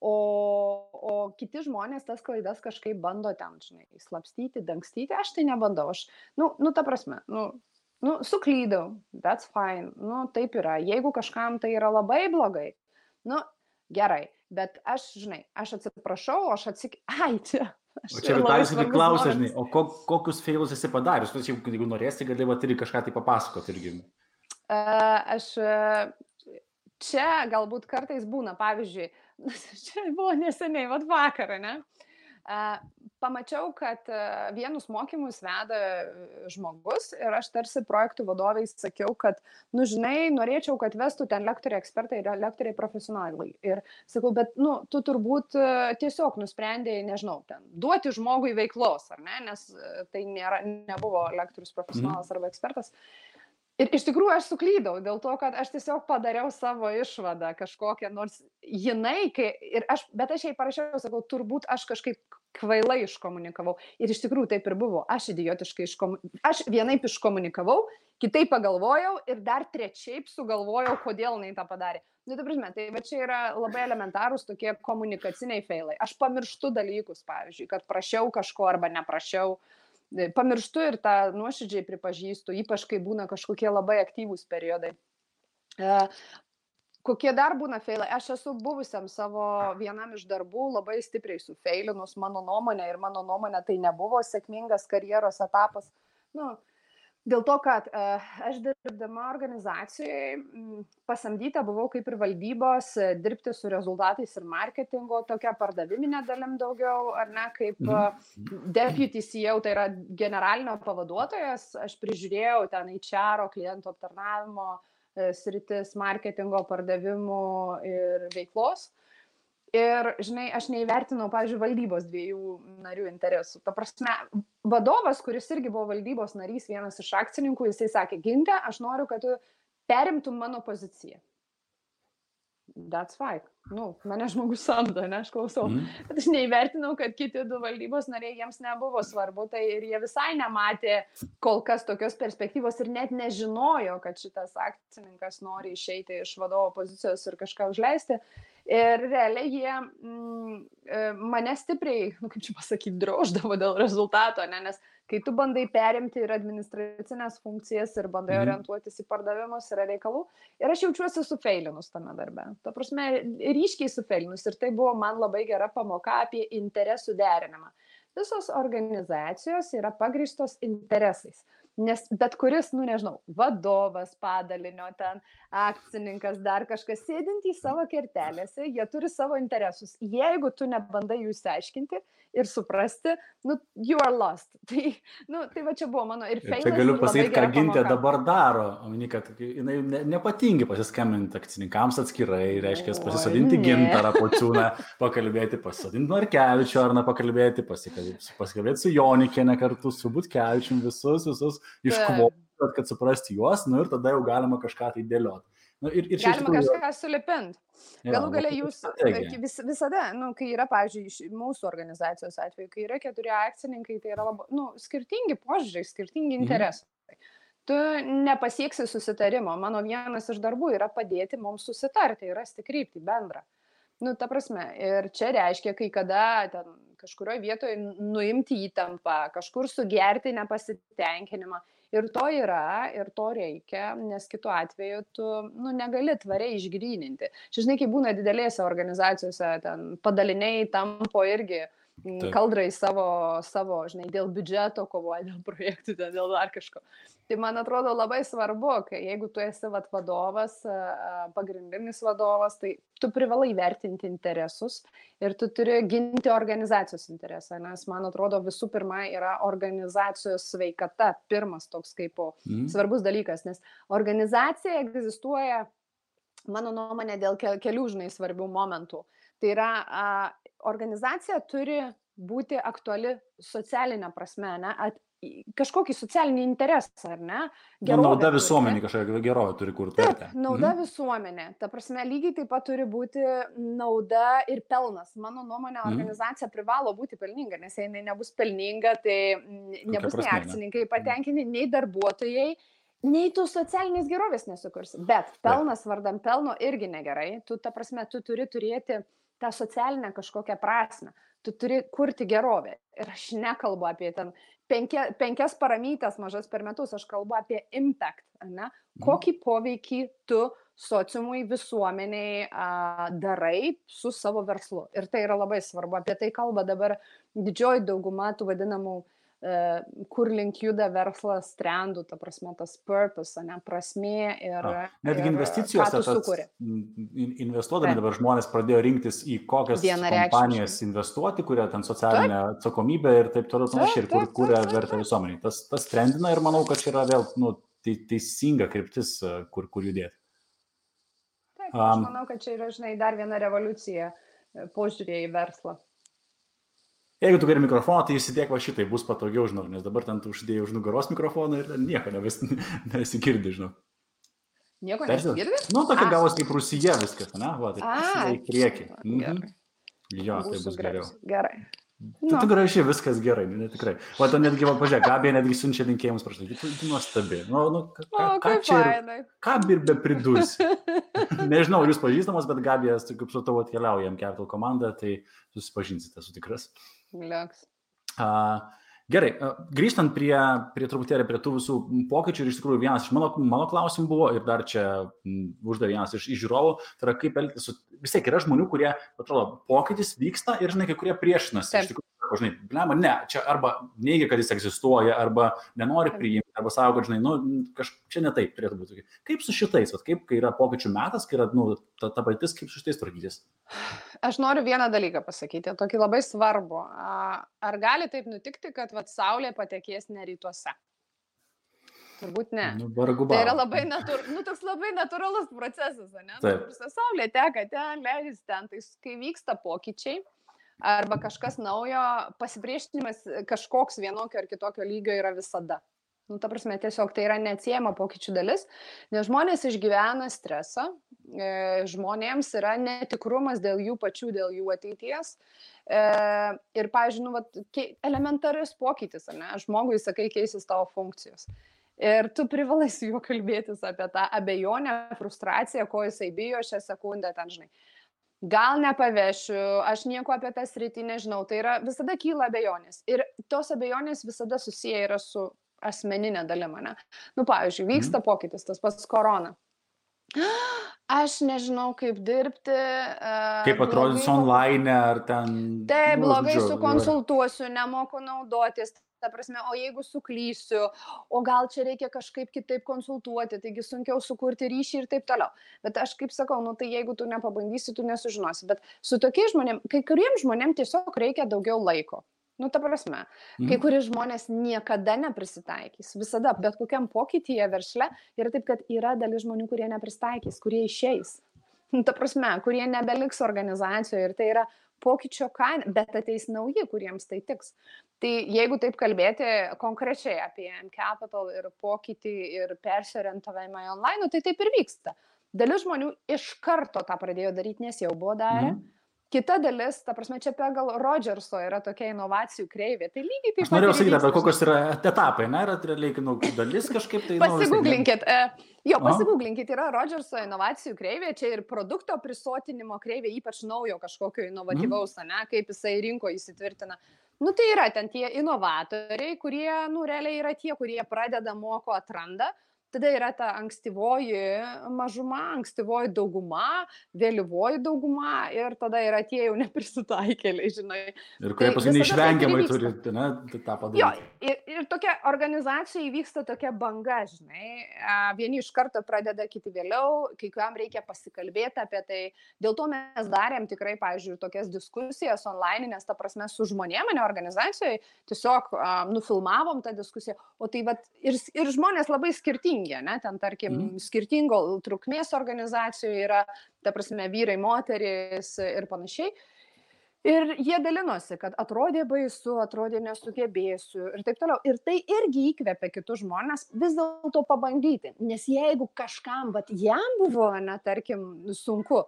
O kiti žmonės tas klaidas kažkaip bando ten, žinai, slapstyti, dangstyti, aš tai nebandau. Aš, ta prasme, suklydau, that's fine, taip yra. Jeigu kažkam tai yra labai blogai, gerai, bet aš, žinai, aš atsiprašau, ai, čia. O čia Vitalijus irgi klausia, žinai, o kokius failus esi padarius? Jeigu norėsi, gali irgi kažką tai papasakoti irgi. Aš čia galbūt kartais būna, pavyzdžiui, čia buvo neseniai, vakarą, ne? Pamačiau, kad vienus mokymus veda žmogus ir aš tarsi projektų vadovai sakiau, kad, žinai, norėčiau, kad vestų ten lektoriai ekspertai ir lektoriai profesionalai. Ir sakau, bet, tu turbūt tiesiog nusprendėjai, nežinau, ten, duoti žmogui veiklos, ar ne? Nes tai nebuvo lektorius profesionalas arba ekspertas. Ir iš tikrųjų aš suklydau dėl to, kad aš tiesiog padariau savo išvadą kažkokią, nors jinai, bet aš jai parašiau, sakau, turbūt aš kažkaip kvailai iškomunikavau. Ir iš tikrųjų taip ir buvo. Aš idiotiškai aš vienaip iškomunikavau, kitaip pagalvojau ir dar trečiaip sugalvojau, kodėl jinai tą padarė. Ta prasme, tai va čia yra labai elementarūs tokie komunikaciniai failai. Aš pamirštu dalykus, pavyzdžiui, kad prašiau kažko arba neprašiau. Pamirštu ir tą nuoširdžiai pripažįstu, ypač kai būna kažkokie labai aktyvūs periodai. Kokie dar būna failai? Aš esu buvusiam savo vienam iš darbų labai stipriai sufeilinus, mano nuomonė tai nebuvo sėkmingas karjeros etapas. Dėl to, kad aš dirbdama organizacijoje pasamdyta buvau kaip ir valdybos dirbti su rezultatais ir marketingo, tokia pardaviminė dalim daugiau, ar ne, kaip deputy CEO, tai yra generalinio pavaduotojas, aš prižiūrėjau ten HR, klientų aptarnavimo sritis, marketingo, pardavimų ir veiklos. Ir, žinai, aš neįvertinau, pavyzdžiui, valdybos 2 narių interesų. Ta prasme, vadovas, kuris irgi buvo valdybos narys, vienas iš akcininkų, jisai sakė, Ginte, aš noriu, kad tu perimtum mano poziciją. That's fine. Mane žmogus samdo, ne, aš klausau. Bet aš neįvertinau, kad kiti 2 valdybos nariai jiems nebuvo svarbu, tai ir jie visai nematė kol kas tokios perspektyvos ir net nežinojo, kad šitas akcininkas nori išeiti iš vadovo pozicijos ir kažką užleisti. Ir realiai jie mane stipriai, kaip čia pasakyti, droždavo dėl rezultato, ne? Nes kai tu bandai perimti ir administracinės funkcijas ir bandai orientuotis į pardavimus yra reikalų. Ir aš jaučiuosi sufeilinus tame darbe. Ta prasme, ryškiai sufeilinus. Ir tai buvo man labai gera pamoka apie interesų derinimą. Visos organizacijos yra pagrįstos interesais. Nes bet kuris, nežinau, vadovas padalinio ten, akcininkas, dar kažkas sėdintys savo kertelėse, jie turi savo interesus. Jeigu tu nebandai jų išsiaiškinti ir suprasti, you are lost. Tai va čia buvo mano ir feilas. Čia galiu pasakyti, ką Gintė dabar daro. Kad jinai nepatingi pasiskambinti akcininkams atskirai, reiškia pasisodinti Gintarą Pociūną, pakalbėti, pasisodinti Markevičių, ar pakalbėti, pasikalbėti su Jonikiene kartu, su Butkevičium, visus iškvoti, kad suprasti juos, ir tada jau galima kažką tai dėlioti. Galima kažką sulipinti. Galų galia jūs visada, kai yra, pavyzdžiui, mūsų organizacijos atveju, kai yra 4 akcininkai, tai yra labai, skirtingi požiūriai, skirtingi interesai. Tu nepasieksi susitarimo. Mano vienas iš darbų yra padėti mums susitarti ir rasti kryptį bendrą. Ta prasme, ir čia reiškia, kai kada ten kažkurioje vietoje nuimti įtampą, kažkur sugerti nepasitenkinimą. Ir to yra, ir to reikia, nes kitu atveju tu negali tvariai išgryninti. Žinai, kai būna didelėse organizacijose, ten padaliniai tampo irgi kaldrai savo, žinai, dėl biudžeto kovoja, dėl projektų, dėl dar kažko. Tai man atrodo labai svarbu, kai jeigu tu esi vadovas, pagrindinis vadovas, tai tu privalai vertinti interesus ir tu turi ginti organizacijos interesą, nes man atrodo visų pirma yra organizacijos sveikata, pirmas toks kaip svarbus dalykas, nes organizacija egzistuoja mano nuomonė, dėl kelių, žinai, svarbių momentų. Tai yra, organizacija turi būti aktuali socialinė prasme, ne? Kažkokį socialinį interesą, ar ne? Nauda visuomenė kažkokia gerovė turi kurti. Taip, nauda visuomenė. Ta prasme, lygiai taip pat turi būti nauda ir pelnas. Mano nuomonė, organizacija privalo būti pelninga, nes jei jinai nebus pelninga, tai nebus nei akcininkai patenkinti, nei darbuotojai, nei tu socialinės gerovės nesukursi. Bet pelnas vardan pelno irgi negerai. Tu, ta prasme, tu turi turėti tą socialinę kažkokią prasme. Tu turi kurti gerovę. Ir aš nekalbu apie ten 5 paramytes mažas per metus, aš kalbu apie impact, ne? Kokį poveikį tu sociumui, visuomeniai darai su savo verslu. Ir tai yra labai svarbu. Apie tai kalba dabar didžioji dauguma tų vadinamų kur link juda verslas trendų, ta prasme, tas purpose, ne, prasmė ir netgi investicijose investuodami dabar žmonės pradėjo rinktis į kokias kompanijas investuoti, kurie ten socialinę atsakomybę ir taip toliau panašiai, ir kuria vertę visuomeniai. Tas trendina ir manau, kad čia yra vėl teisinga kryptis, kur judėti. Taip, aš manau, kad čia yra, žinai, dar viena revoliucija požiūrė į verslą. Jeigu tu geri mikrofoną, tai įsidėk va šitai, bus patogiau, žinau, nes dabar ten tu uždėjai už nugaros mikrofoną ir nieko nesigirdi, žinau. Nieko nesigirdi? Nu, tokia gavos kaip Rusija viskas, ne? Va, tai į priekį. Jo, tai bus geriau. Gerai. Tu gražiai, viskas gerai, tikrai. O to netgi, pažiūrėk, Gabija netgi siunčia linkėjimus prašau. Tu nuostabi. Ką ir be pridursi? Nežinau, jūs pažįstamos, bet Gabija, kaip su tavo atkeliauja Capital komanda, tai susipažinsite, esu tikras. Gerai, grįžtant prie truputėlį prie tų visų pokyčių, ir iš tikrųjų vienas iš mano klausimų buvo, ir dar čia uždavė vienas iš žiūrovų, tai yra kaip elgtis su, vis tiek yra žmonių, kurie, atrodo, pokytis vyksta ir, žinai, kai kurie priešinasi. Iš tikrųjų, žinai, blema, ne, čia arba neigia, kad jis egzistuoja, arba nenori priimti, arba savo, kad, žinai, čia ne taip turėtų būti. Kaip su šitais, kaip, kai yra pokyčių metas, kai yra, ta patirtis, kaip su šitais tvarkytis? Aš noriu vieną dalyką pasakyti, tokį labai svarbu. Ar gali taip nutikti, kad Saulė patekės ne rytuose? Turbūt ne. Tai yra labai toks labai natūralus procesas, ne? Saulė teka ten, leidžiasi ten, tai kai vyksta pokyčiai, arba kažkas naujo, pasipriešinimas kažkoks vienokio ar kitokio lygio yra visada. Ta prasme, tiesiog tai yra neatsiejama pokyčių dalis, nes žmonės išgyvena stresą, žmonėms yra netikrumas dėl jų pačių, dėl jų ateities. Ir, pavyzdžiui, elementarius pokytis, ne? Žmogui, sakai, keisis tavo funkcijos. Ir tu privalai su juo kalbėtis apie tą abejonę, frustraciją, ko jisai bijo šią sekundę, ten, žinai. Gal nepavešiu, aš nieko apie tą sritį nežinau, tai yra visada kyla abejonės. Ir tos abejonės visada susiję yra su asmeninė dalima, ne? Pavyzdžiui, vyksta pokytis, tas pats korona. Aš nežinau, kaip dirbti. Kaip atrodys online ar ten... Taip, blogai sukonsultuosiu, nemoku naudotis. Ta prasme, o jeigu suklysiu, o gal čia reikia kažkaip kitaip konsultuoti, taigi sunkiau sukurti ryšį ir taip toliau. Bet aš kaip sakau, tai jeigu tu nepabandysi, tu nesužinosi. Bet su tokiais žmonėm, kai kuriems žmonėm tiesiog reikia daugiau laiko. Ta prasme, kai kurie žmonės niekada neprisitaikys. Visada, bet kokiam pokytyje versle yra taip, kad yra dalis žmonių, kurie neprisitaikys, kurie išeis. Ta prasme, kurie nebeliks organizacijoje ir tai yra pokyčio kaina, bet ateis nauji, kuriems tai tiks. Tai jeigu taip kalbėti konkrečiai apie Capital ir pokytį ir persiorientavimą į online, tai taip ir vyksta. Dalis žmonių iš karto tą pradėjo daryti, nes jau buvo darę. Kita dalis, ta prasme, čia pagal Rodžerso yra tokia inovacijų kreivė. Tai lygiai taip pat. Aš norėjau sakyti, bet kokios yra etapai, ne? Yra realiai dalis kažkaip tai... Pasigūglinkit. Pasigūglinkit, yra Rodžerso inovacijų kreivė, čia ir produkto prisotinimo kreivė, ypač naujo kažkokio inovatyvaus, ne? Kaip jisai rinkoje įsitvirtina. Tai yra ten tie inovatoriai, kurie, realiai yra tie, kurie pradeda, moko, atranda. Tada yra ta ankstyvoji mažuma, ankstyvoji dauguma, vėlyvoji dauguma ir tada yra tie jau neprisitaikėliai, žinai. Ir kurie paskui neišvengiamai turi tą padaryti. Jo, ir tokia organizacija įvyksta tokia banga, žinai. Vieni iš karto pradeda, kiti vėliau, kai kuriam reikia pasikalbėti apie tai. Dėl to mes darėm tikrai, pavyzdžiui, tokias diskusijas online, nes ta prasme su žmonėm, ne organizacijoje, tiesiog nufilmavom tą diskusiją. O tai ir žmonės labai skirtingi skirtingi, ne, ten tarkim skirtingo trukmės organizacijų yra, ta prasme, vyrai, moterys ir panašiai. Ir jie dalinosi, kad atrodė baisu, atrodė nesugebėsiu ir taip toliau. Ir tai irgi įkvepia kitus žmonės vis dėlto pabandyti. Nes jeigu kažkam, bet jam buvo, ne, tarkim, sunku,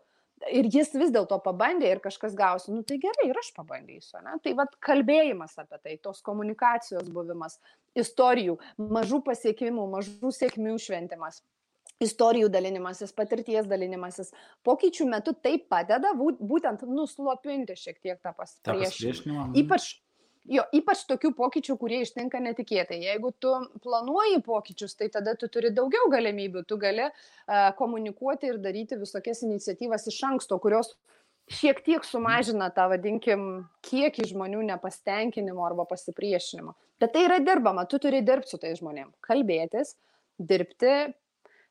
ir jis vis dėlto pabandė ir kažkas gausi, nu tai gerai, ir aš pabandysiu. Ne? Tai vat kalbėjimas apie tai, tos komunikacijos buvimas, istorijų, mažų pasiekimų, mažų sėkmių šventimas. Istorijų dalinimasis, patirties dalinimasis, pokyčių metu tai padeda būtent nuslopinti šiek tiek tą pasipriešinimą. Ypač tokių pokyčių, kurie ištinka netikėtai. Jeigu tu planuoji pokyčius, tai tada tu turi daugiau galimybių, tu gali komunikuoti ir daryti visokias iniciatyvas iš anksto, kurios šiek tiek sumažina tą, vadinkim, kiekį žmonių nepasitenkinimo arba pasipriešinimo. Bet tai yra dirbama, tu turi dirbti su tais žmonėm, kalbėtis, dirbti,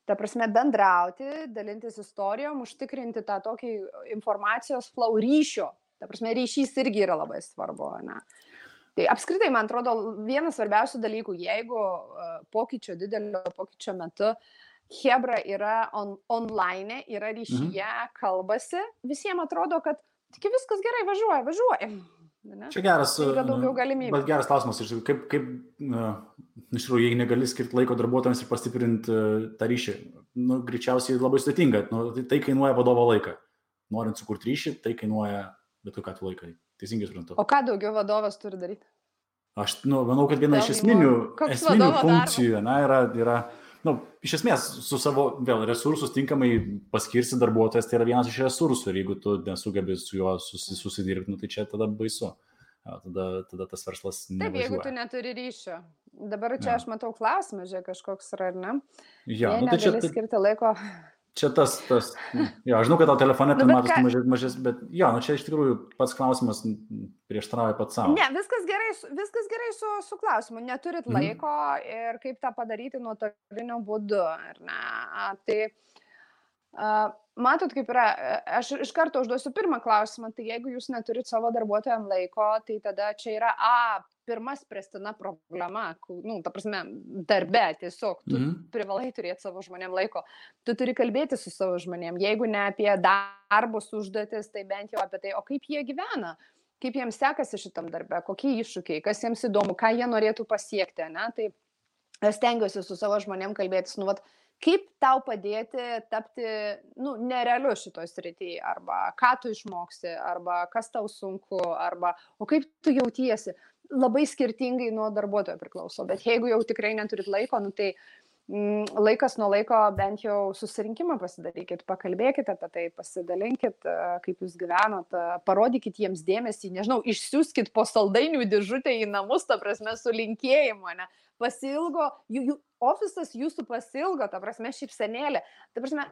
ta prasme, bendrauti, dalintis istorijom, užtikrinti tą tokį informacijos flow ryšio. Ta prasme, ryšys irgi yra labai svarbu. Ne? Tai apskritai, man atrodo, vienas svarbiausių dalykų, jeigu didelio pokyčio metu chebra yra online, yra ryšyje, kalbasi, visiems atrodo, kad tik viskas gerai, važiuoja. Ne? Čia geras, yra daugiau galimybių. Bet geras klausimas, kaip iš tikrųjų, jei negali skirti laiko darbuotojams ir pastiprinti tą ryšį, greičiausiai labai sudėtinga, tai kainuoja vadovo laiką. Norint sukurti ryšį, tai kainuoja bet kokią laiką. Teisingai suprantu. O ką daugiau vadovas turi daryti? Aš manau, kad viena iš esminių funkcijų yra iš esmės su savo resursus tinkamai paskirsi darbuotojas, tai yra vienas iš resursų ir jeigu tu nesugebi su juo susidirbti, tai čia tada baisu. Tada tas verslas nevažiuoja. Taip, jeigu tu neturi ryšio. Dabar čia aš matau klausimą, kažkoks yra, ar ne? Ja, negali skirti laiko. Čia tas, žinau, kad tau telefone tai matos mažes, bet čia iš tikrųjų pats klausimas prieštarauja pats savo. Ne, viskas gerai su klausimu. Neturit laiko ir kaip tą padaryti nuotolinio būdu. Tai matot, kaip yra, aš iš karto užduosiu pirmą klausimą, tai jeigu jūs neturit savo darbuotojams laiko, tai tada čia yra pirma spręstina problema, ta prasme, darbe tiesiog, tu privalai turėti savo žmonėm laiko, tu turi kalbėti su savo žmonėm, jeigu ne apie darbus užduotis, tai bent jau apie tai, o kaip jie gyvena, kaip jiems sekasi šitam darbe, kokie iššūkiai, kas jiems įdomu, ką jie norėtų pasiekti, tai aš stengiuosi su savo žmonėm kalbėtis, kaip tau padėti tapti nerealiu šitoj srityje, arba ką tu išmoksi, arba kas tau sunku, arba o kaip tu jautiesi. Labai skirtingai nuo darbuotojo priklauso, bet jeigu jau tikrai neturit laiko, tai laikas nuo laiko bent jau susirinkimą pasidarykit, pakalbėkit apie tai, pasidalinkit, kaip jūs gyvenot, parodykit jiems dėmesį, nežinau, išsiųskit po saldainių dėžutę į namus, ta prasme, su linkėjimu, pasilgo, ofisas jūsų pasilgo, ta prasme, šypsenėlė, ta prasme,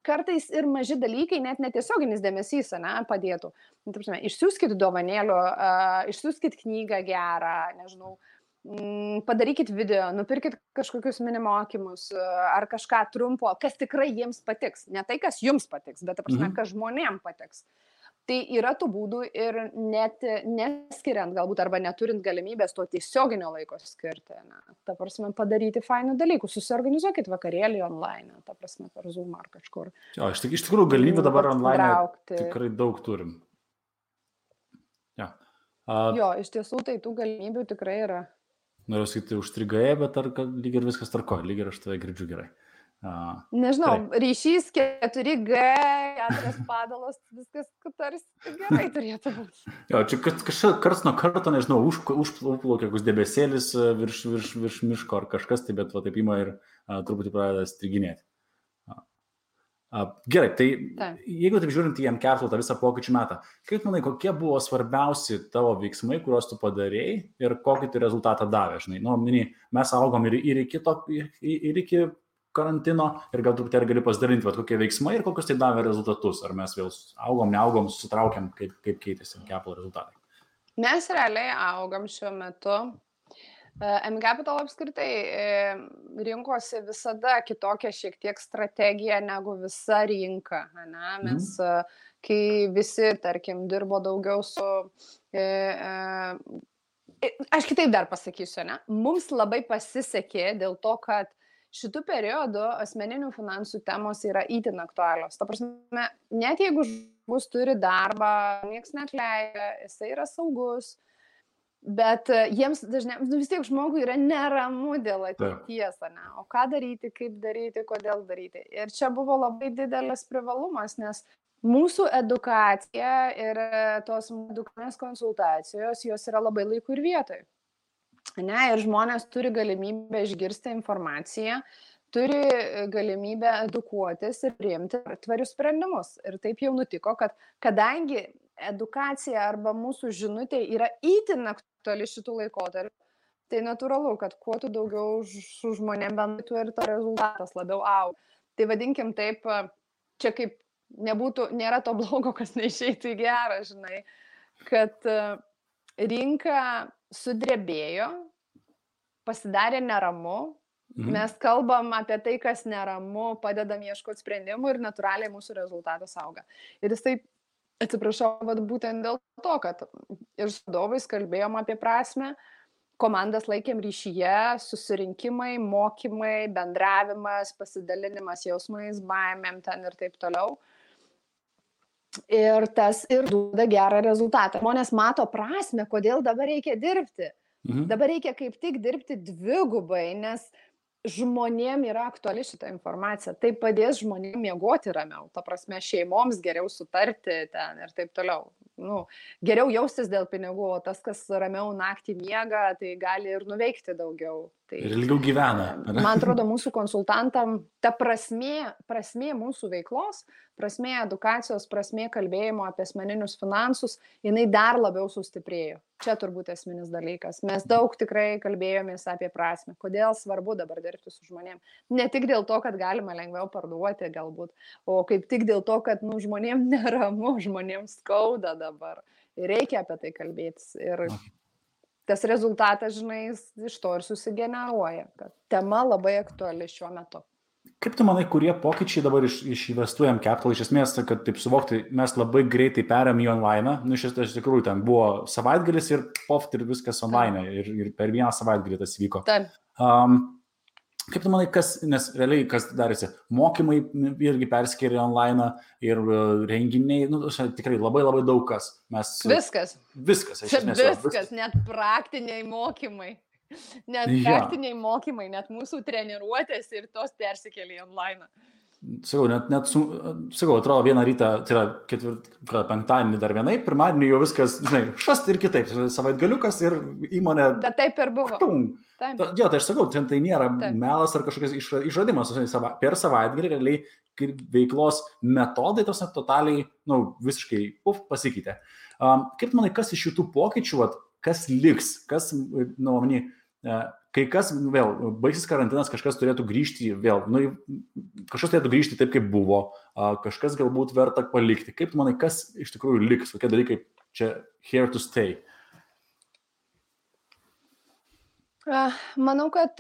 kartais ir maži dalykai, net netiesioginis dėmesys, padėtų. Ta prasme, išsiųskit dovanėlių, išsiųskit knygą gerą, nežinau, padarykit video, nupirkit kažkokius mini mokymus ar kažką trumpo, kas tikrai jiems patiks. Ne tai, kas jums patiks, bet, ta prasme, kas žmonėm patiks. Tai yra tų būdų ir net neskiriant galbūt arba neturint galimybės to tiesioginio laiko skirti. Ta prasme, padaryti fainų dalykų. Susiorganizuokit vakarėlį online, ta prasme, per Zoom ar kažkur. Iš tikrųjų, galimybę dabar online tikrai daug turim. Iš tiesų, tai tų galimybių tikrai yra. Noriu sakyti, užstrigąjai, bet lyg ir viskas tvarko, lyg ir aš tave girdžiu gerai. Nežinau, ryšys 4G, 4 padalos, viskas tarsi gerai turėtų būti. Čia karts nuo karto, nežinau, užplaukia koks debesėlis virš miško ar kažkas, tai bet taip ima ir truputį pradeda striginėti. Gerai, tai jeigu taip žiūrint į mCapital tą visą pokyčių metą, kaip manai, kokie buvo svarbiausi tavo veiksmai, kuriuos tu padarėjai ir kokį tai rezultatą davė? Mes augom ir iki karantino ir gal truputėlį gali pasidalinti, kokie veiksmai ir kokius tai davė rezultatus. Ar mes vėl augom, neaugom, susitraukėm, kaip keitėsi mCapital rezultatai? Mes realiai augam šiuo metu. mCapital apskritai rinkosi visada kitokią šiek tiek strategiją negu visa rinka. Mes, kai visi, tarkim, dirbo daugiau su... Aš kitaip dar pasakysiu, mums labai pasisekė dėl to, kad šitų periodų asmeninių finansų temos yra itin aktualios. Ta prasme, net jeigu žmogus turi darbą, nieks neatleidžia, jisai yra saugus, bet jiems dažniausiai vis tiek žmogui yra neramu dėl ateities, ne? O ką daryti, kaip daryti, kodėl daryti. Ir čia buvo labai didelis privalumas, nes mūsų edukacija ir tos edukacinės konsultacijos, jos yra labai laiku ir vietoj. Ne? Ir žmonės turi galimybę išgirsti informaciją, turi galimybę edukuotis ir priimti tvarius sprendimus. Ir taip jau nutiko, kad kadangi edukacija arba mūsų žinutė yra itin aktuali šitų laikotarpių, tai natūralu, kad kuo tu daugiau su žmonėm bendrai, tuo ir to rezultatas labiau auga. Tai vadinkim taip, čia kaip nėra to blogo, kas neišeitų į gerą, žinai, kad rinka sudrebėjo, pasidarė neramu, mes kalbam apie tai, kas neramu, padedam ieškoti sprendimų ir natūraliai mūsų rezultatas auga. Ir jis taip, atsiprašau, būtent dėl to, kad ir su vadovais kalbėjom apie prasmę, komandas laikėm ryšyje, susirinkimai, mokymai, bendravimas, pasidalinimas jausmais, baimėm ten ir taip toliau. Ir tas ir duoda gerą rezultatą. Žmonės mato prasmę, kodėl dabar reikia dirbti. Dabar reikia kaip tik dirbti dvigubai, nes žmonėm yra aktuali šitą informaciją. Tai padės žmonėm miegoti ramiau. Ta prasme, šeimoms geriau sutarti ten ir taip toliau. Geriau jaustis dėl pinigų, o tas, kas ramiau naktį miega, tai gali ir nuveikti daugiau. Tai, ir ilgiau gyvena. Man atrodo, mūsų konsultantam ta prasmė mūsų veiklos, prasmė edukacijos, prasmė kalbėjimo apie asmeninius finansus, jinai dar labiau sustiprėjo. Čia turbūt esminis dalykas. Mes daug tikrai kalbėjomės apie prasmę. Kodėl svarbu dabar dirbti su žmonėm? Ne tik dėl to, kad galima lengviau parduoti galbūt, o kaip tik dėl to, kad žmonėm neramu, žmonėm skauda dabar. Ir reikia apie tai kalbėtis. Ir tas rezultatas, žinai, iš to ir susigeneruoja, kad tema labai aktuali šiuo metu. Kaip tu manai, kurie pokyčiai dabar iš Investuojam Capital, iš esmės, kad taip suvokti, mes labai greitai perėm į online, iš tikrųjų ten buvo savaitgalis ir poft ir viskas online ir per vieną savaitgalį tas vyko. Taip. Kaip tu manai, nes realiai kas darėsi, mokymai irgi perskėrė online ir renginiai, tikrai labai labai daug kas. Viskas. Viskas, net praktiniai mokymai. Praktiniai mokymai, net mūsų treniruotės ir tos persikėlė online. Sakau, atrodo vieną rytą, tai yra penktadienį dar vienai, pirmadienį jau viskas, žinai, šast ir kitaip, savaitgaliukas ir įmonė. Bet taip ir buvo. Jo, tai aš sakau, tai nėra melas ar kažkokias išradimas, per savaitgalį realiai veiklos metodai tos totaliai, visiškai pasikeitė. Kaip manai, kas iš šitų pokyčių, kas liks, kas, kai kas vėl baigsis karantinas, kažkas turėtų grįžti vėl, kažkas turėtų grįžti taip, kaip buvo, kažkas galbūt verta palikti. Kaip manai, kas iš tikrųjų liks, kokie dalykai čia here to stay? Manau, kad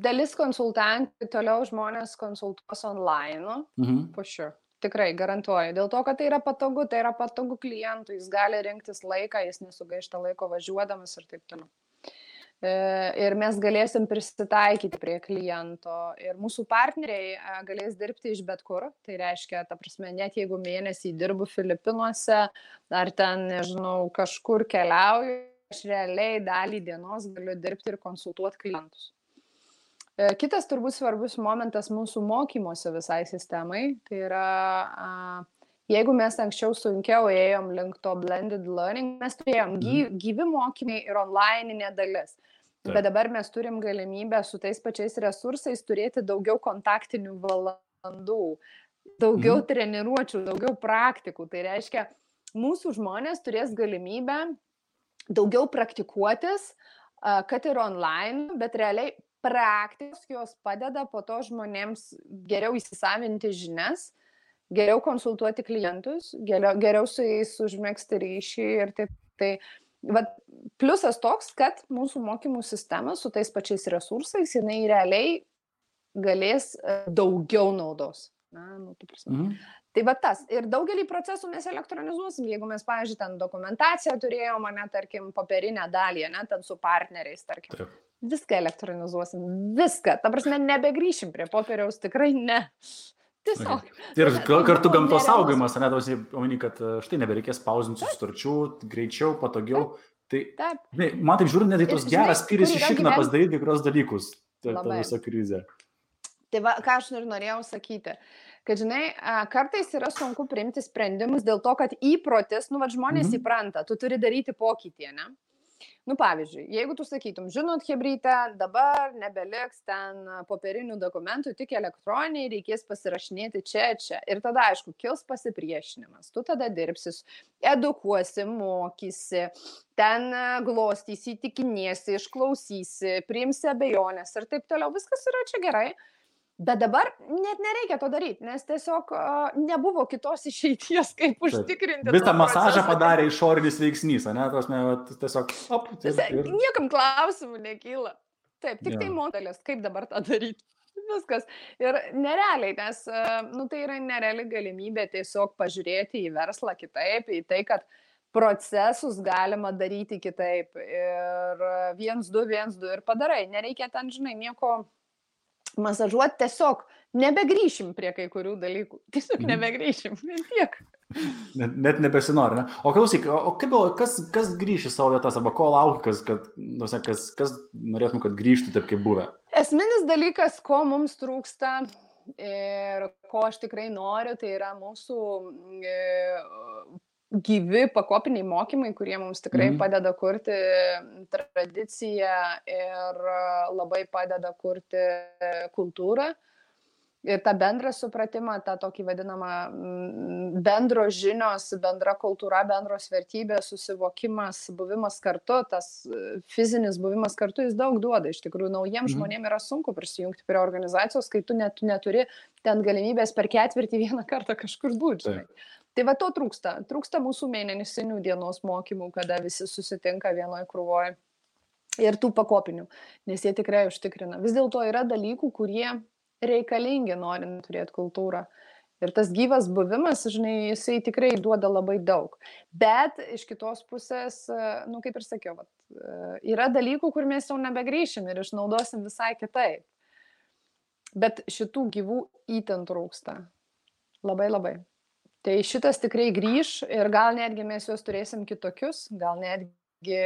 dalis konsultantų toliau žmonės konsultuos online, for sure. Tikrai, garantuoju. Dėl to, kad tai yra patogu klientui, jis gali rinktis laiką, jis nesugaišta laiko važiuodamas ir taip toliau. Ir mes galėsim prisitaikyti prie kliento ir mūsų partneriai galės dirbti iš bet kur. Tai reiškia, ta prasme, net jeigu mėnesį dirbu Filipinuose ar ten, nežinau, kažkur keliauju, aš realiai dalį dienos galiu dirbti ir konsultuoti klientus. Kitas turbūt svarbus momentas mūsų mokymosi visai sistemai, tai yra, jeigu mes anksčiau sunkiau ėjom link to blended learning, mes turėjom gyvi mokymai ir online'inė dalis. Bet dabar mes turim galimybę su tais pačiais resursais turėti daugiau kontaktinių valandų, daugiau treniruočių, daugiau praktikų. Tai reiškia, mūsų žmonės turės galimybę daugiau praktikuotis, kad ir online, bet realiai praktikos jos padeda po to žmonėms geriau įsisavinti žinias, geriau konsultuoti klientus, geriau su jais užmegzti ryšį ir taip. Tai pliusas toks, kad mūsų mokymų sistema su tais pačiais resursais, jinai realiai galės daugiau naudos. Tai tas. Ir daugelį procesų mes elektronizuosim. Jeigu mes, pavyzdžiui, ten dokumentaciją turėjom, tarkim, popierinę dalį, ten su partneriais, tarkim. viską elektronizuosim, viską. Ta prasme, nebegrįšim prie popieriaus, tikrai ne. Tiesiog. Ir kartu gamtos nerealus. saugojimas, ne, tausi, omeny, kad štai nebereikės pauzinti sutarčių, greičiau, patogiau. Tai, man taip žiūrint, net į tos geras spyris išikna pasidaryti kai kurios dalykus, ta visa krizė. Tai va, ką aš norėjau sakyti, kad, žinai, kartais yra sunku priimti sprendimus dėl to, kad įprotis, žmonės įpranta, tu turi daryti pokytį, ne? Pavyzdžiui, jeigu tu sakytum, žinot, hebryte, dabar nebeliks ten popierinių dokumentų, tik elektroniniai, reikės pasirašinėti čia. Ir tada, aišku, kils pasipriešinimas. Tu tada dirbsis, edukuosi, mokysi, ten glostysi, įtikinėsi, išklausysi, priimsi abejonės ir taip toliau. Viskas yra čia gerai. Bet dabar net nereikia to daryti, nes tiesiog nebuvo kitos išeities, kaip užtikrinti. Visą masažą padarė išorinis veiksnys, ne? Tiesiog, Niekam klausimų nekyla. Taip, tik tai modelis, kaip dabar tą daryti. Viskas. Ir nerealiai, nes tai yra nereali galimybė tiesiog pažiūrėti į verslą kitaip, į tai, kad procesus galima daryti kitaip. Ir 1-2 ir padarai. Nereikia ten, žinai, nieko masažuoti, tiesiog nebegrįšim prie kai kurių dalykų. Tiesiog nebegrįšim, tiek. Net nebesinori, ne? O klausyk, kas grįš į savo vietas, arba ko laukia, kas norėtum, kad grįžtų taip, kaip buvę? Esminis dalykas, ko mums trūksta ir ko aš tikrai noriu, tai yra mūsų gyvi pakopiniai mokymai, kurie mums tikrai padeda kurti tradiciją ir labai padeda kurti kultūrą. Ir tą bendrą supratimą, tą tokį vadinamą bendros žinios, bendra kultūra, bendros vertybės, susivokimas, buvimas kartu, tas fizinis buvimas kartu, jis daug duoda. Iš tikrųjų, naujiems žmonėms yra sunku prisijungti prie organizacijos, kai tu neturi ten galimybės per ketvirtį vieną kartą kažkur būti. Tai va to trūksta. Trūksta mūsų mėnesinių dienos mokymų, kada visi susitinka vienoje krūvoje. Ir tų pakopinių, nes jie tikrai užtikrina. Vis dėlto yra dalykų, kurie reikalingi norint turėti kultūrą. Ir tas gyvas buvimas, žinai, jisai tikrai duoda labai daug. Bet iš kitos pusės, kaip ir sakiau, yra dalykų, kur mes jau nebegrįšim ir išnaudosim visai kitaip. Bet šitų gyvų įten trūksta. Labai. Tai šitas tikrai grįš ir gal netgi mes juos turėsim kitokius, gal netgi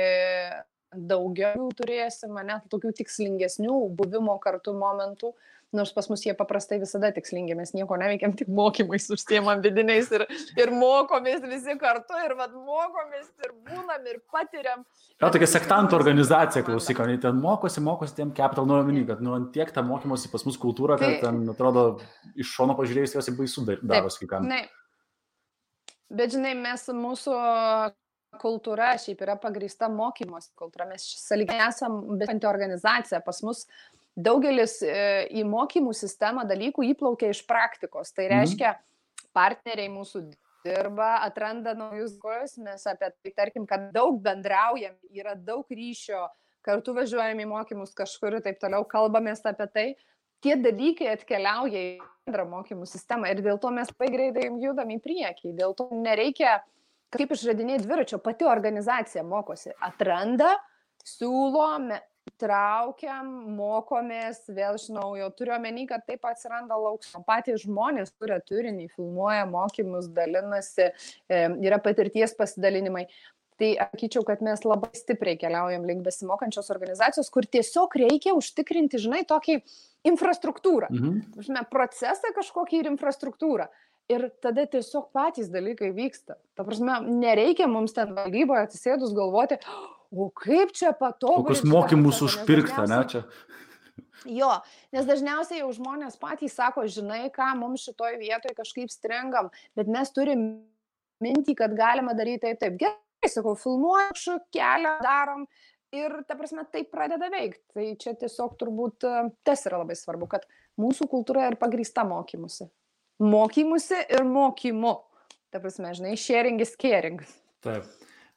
daugiau turėsim, net tokių tikslingesnių buvimo kartu momentų, nors pas mus jie paprastai visada tikslingi, mes nieko neveikiam, tik mokymais užsiemam vidiniais ir mokomės visi kartu ir mokomės ir būnam ir patiriam. Tokia sektantų organizacija, klausyk, ten mokosi tiem capital nuomenį, kad tiek tą mokymosi pas mus kultūra, kad ten atrodo iš šono pažiūrėjus jos baisu darosi kai kam. Bet žinai, mūsų kultūra šiaip yra pagrįsta mokymosi kultūra, mes sąlyginai esam besanti organizacija, pas mus daugelis į mokymų sistemą dalykų įplaukia iš praktikos, tai reiškia partneriai mūsų dirba, atranda naujus dalykus, mes apie tai, tarkim, kad daug bendraujam, yra daug ryšio, kartu važiuojam į mokymus kažkur ir taip toliau, kalbamės apie tai. Tie dalykai atkeliauja į bendrą mokymų sistemą ir dėl to mes labai greitai judam į priekį. Dėl to nereikia kaip išradinėti dviračio, pati organizacija mokosi. Atranda, siūlo, traukiam, mokomės vėl iš naujo. Turiu omeny, kad taip atsiranda lauksmo. Patys žmonės kuria turinį, filmuoja mokymus, dalinasi, yra patirties pasidalinimai. Tai sakyčiau, kad mes labai stipriai keliaujam link besimokančios organizacijos, kur tiesiog reikia užtikrinti, žinai, tokį infrastruktūrą. Procesą kažkokį ir infrastruktūrą. Ir tada tiesiog patys dalykai vyksta. Ta prasme, nereikia mums ten valdyboje atsisėdus galvoti, o kaip čia patobulinti. Kokius mokymus užpirkta, ne čia? Jo, nes dažniausiai jau žmonės patys sako, žinai, ką mums šitoj vietoje kažkaip stringam, bet mes turim mintį, kad galima daryti taip. Gerai, sakau, filmuoju, kelią darom ir, ta prasme, tai pradeda veikti. Tai čia tiesiog turbūt tas yra labai svarbu, kad mūsų kultūra yra pagrįsta mokymusi. Mokymusi ir mokymu. Ta prasme, žinai, sharing is caring. Taip.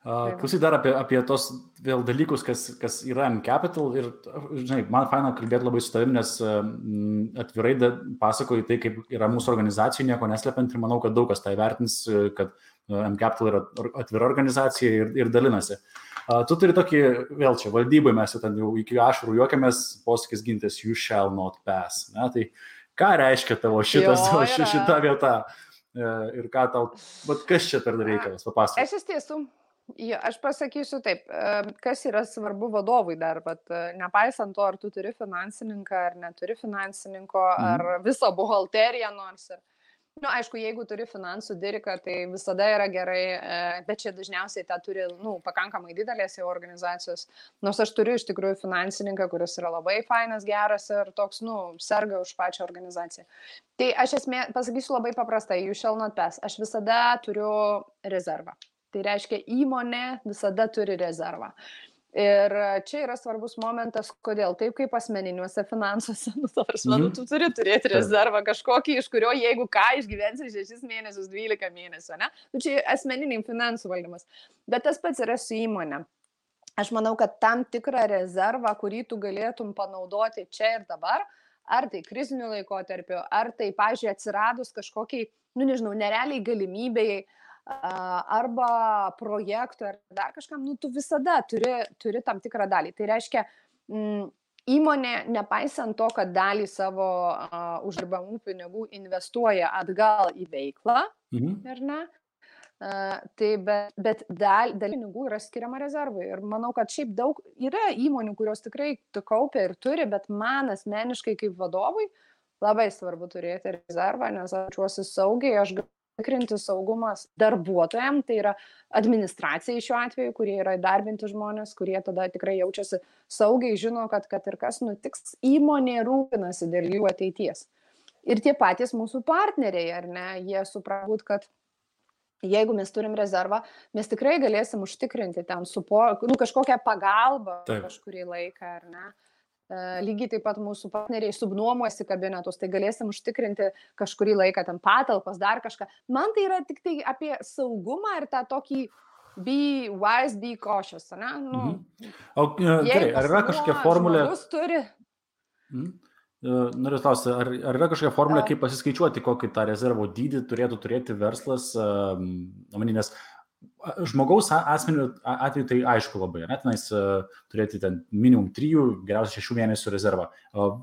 Klausyk dar apie tos vėl dalykus, kas yra mCapital ir, žinai, man faina kalbėti labai su tavim, nes atvirai pasakoju tai, kaip yra mūsų organizacija, nieko neslepiant ir manau, kad daug kas tai vertins, kad mCapital yra atvira organizacija ir dalinasi. Tu turi tokį, vėl čia valdybai mes jau ten jau iki ašarų juokiamės, posakis gintis, you shall not pass. Ne? Tai ką reiškia tavo šita vieta ir ką tau, bet kas čia per reikalas, papasakok. Aš iš tiesų. Aš pasakysiu taip, kas yra svarbu vadovui dar, bet nepaisant to, ar tu turi finansininką, ar neturi finansininko, ar visą buhalteriją nors. Aišku, jeigu turi finansų diriką, tai visada yra gerai, bet čia dažniausiai tą turi pakankamai didelės jau organizacijos. Nors aš turiu iš tikrųjų finansininką, kuris yra labai fainas, geras ir toks, serga už pačią organizaciją. Tai aš pasakysiu labai paprastai, you shall not pass. Aš visada turiu rezervą. Tai reiškia, įmonė visada turi rezervą. Ir čia yra svarbus momentas, kodėl. Taip kaip asmeniniuose finansuose, tu turi turėti rezervą kažkokį, iš kurio, jeigu ką, išgyvensi 6 mėnesius, 12 mėnesių, ne? Čia asmeniniai finansų valdymas. Bet tas pats yra su įmonė. Aš manau, kad tam tikrą rezervą, kurį tu galėtum panaudoti čia ir dabar, ar tai kriziniu laikotarpiu, ar tai, pavyzdžiui, atsiradus kažkokiai, nerealiai galimybėjai, arba projektų, ar dar kažkam, tu visada turi tam tikrą dalį. Tai reiškia, įmonė, nepaisant to, kad dalį savo uždirbamų pinigų investuoja atgal į veiklą, ar ne? Bet dalį pinigų yra skiriama rezervui. Ir manau, kad šiaip daug yra įmonių, kurios tikrai kaupia ir turi, bet man asmeniškai kaip vadovui labai svarbu turėti rezervą, nes aš jaučiuosi saugiai, aš tikrinti saugumas darbuotojams, tai yra administracijai šiuo atveju, kurie yra įdarbinti žmonės, kurie tada tikrai jaučiasi saugiai, žino, kad ir kas nutiks, įmonė rūpinasi dėl jų ateities. Ir tie patys mūsų partneriai, ar ne, jie supranta, kad jeigu mes turim rezervą, mes tikrai galėsim užtikrinti ten kažkokią pagalbą kažkurį laiką, ar ne. Lygiai taip pat mūsų partneriai subnuomuosi kabinetus, tai galėsim užtikrinti kažkurį laiką ten patalpas, dar kažką. Man tai yra tik tai apie saugumą ir tą tokį be wise, be cautious, ne? Gerai, ar yra kažkokia formulė? Noriu klausti, ar yra kažkokia formulė, kaip pasiskaičiuoti, kokį tą rezervo dydį turėtų turėti verslas, nes žmogaus atveju tai aišku labai, tenais turėti ten minimum 3, geriausiai 6 mėnesių rezervą.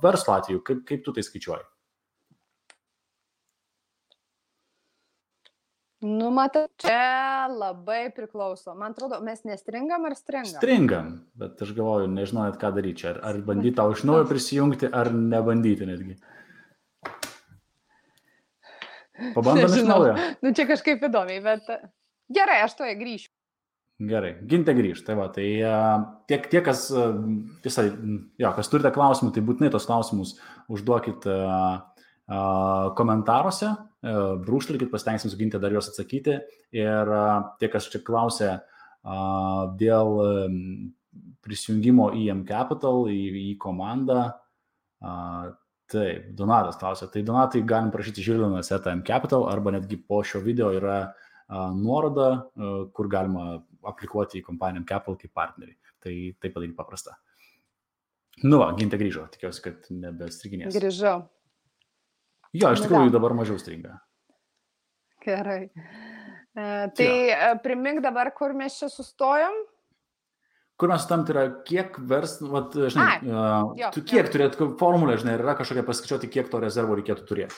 Verslo atveju, kaip tu tai skaičiuoji? Matai, čia labai priklauso. Man atrodo, mes nestringam ar stringam? Stringam, bet aš galvoju, nežinau net ką daryti čia. Ar bandyti tau iš naujo prisijungti, ar nebandyti netgi. Pabandom iš naujo. Čia kažkaip įdomiai, bet gerai, aš toje grįšiu. Gerai, Gintė grįžt. Tai va, tai tie, kas turite klausimų, tai būtinai tos klausimus užduokit komentaruose, brūkštelkit, pasitengsim su Gintė dar juos atsakyti. Ir tie, kas čia klausė dėl prisijungimo į mCapital, į komandą, taip, Donatas klausė. Tai Donatai galim prašyti Žilvinas @mCapital arba netgi po šio video yra nuoroda, kur galima aplikuoti į kompaniją mCapital kaip partnerį. Tai padaryti paprasta. Gintė grįžo, tikiuosi, kad nebestriginės. Grįžau. Jo, iš tikrųjų dabar mažiau stringa. Gerai. Tai primink dabar, kur mes čia sustojom? Kur mes sustojom, tai yra kiek kiek turėtų formulę, žinai, yra kažkokia paskaičiuoti, kiek to rezervo reikėtų turėti?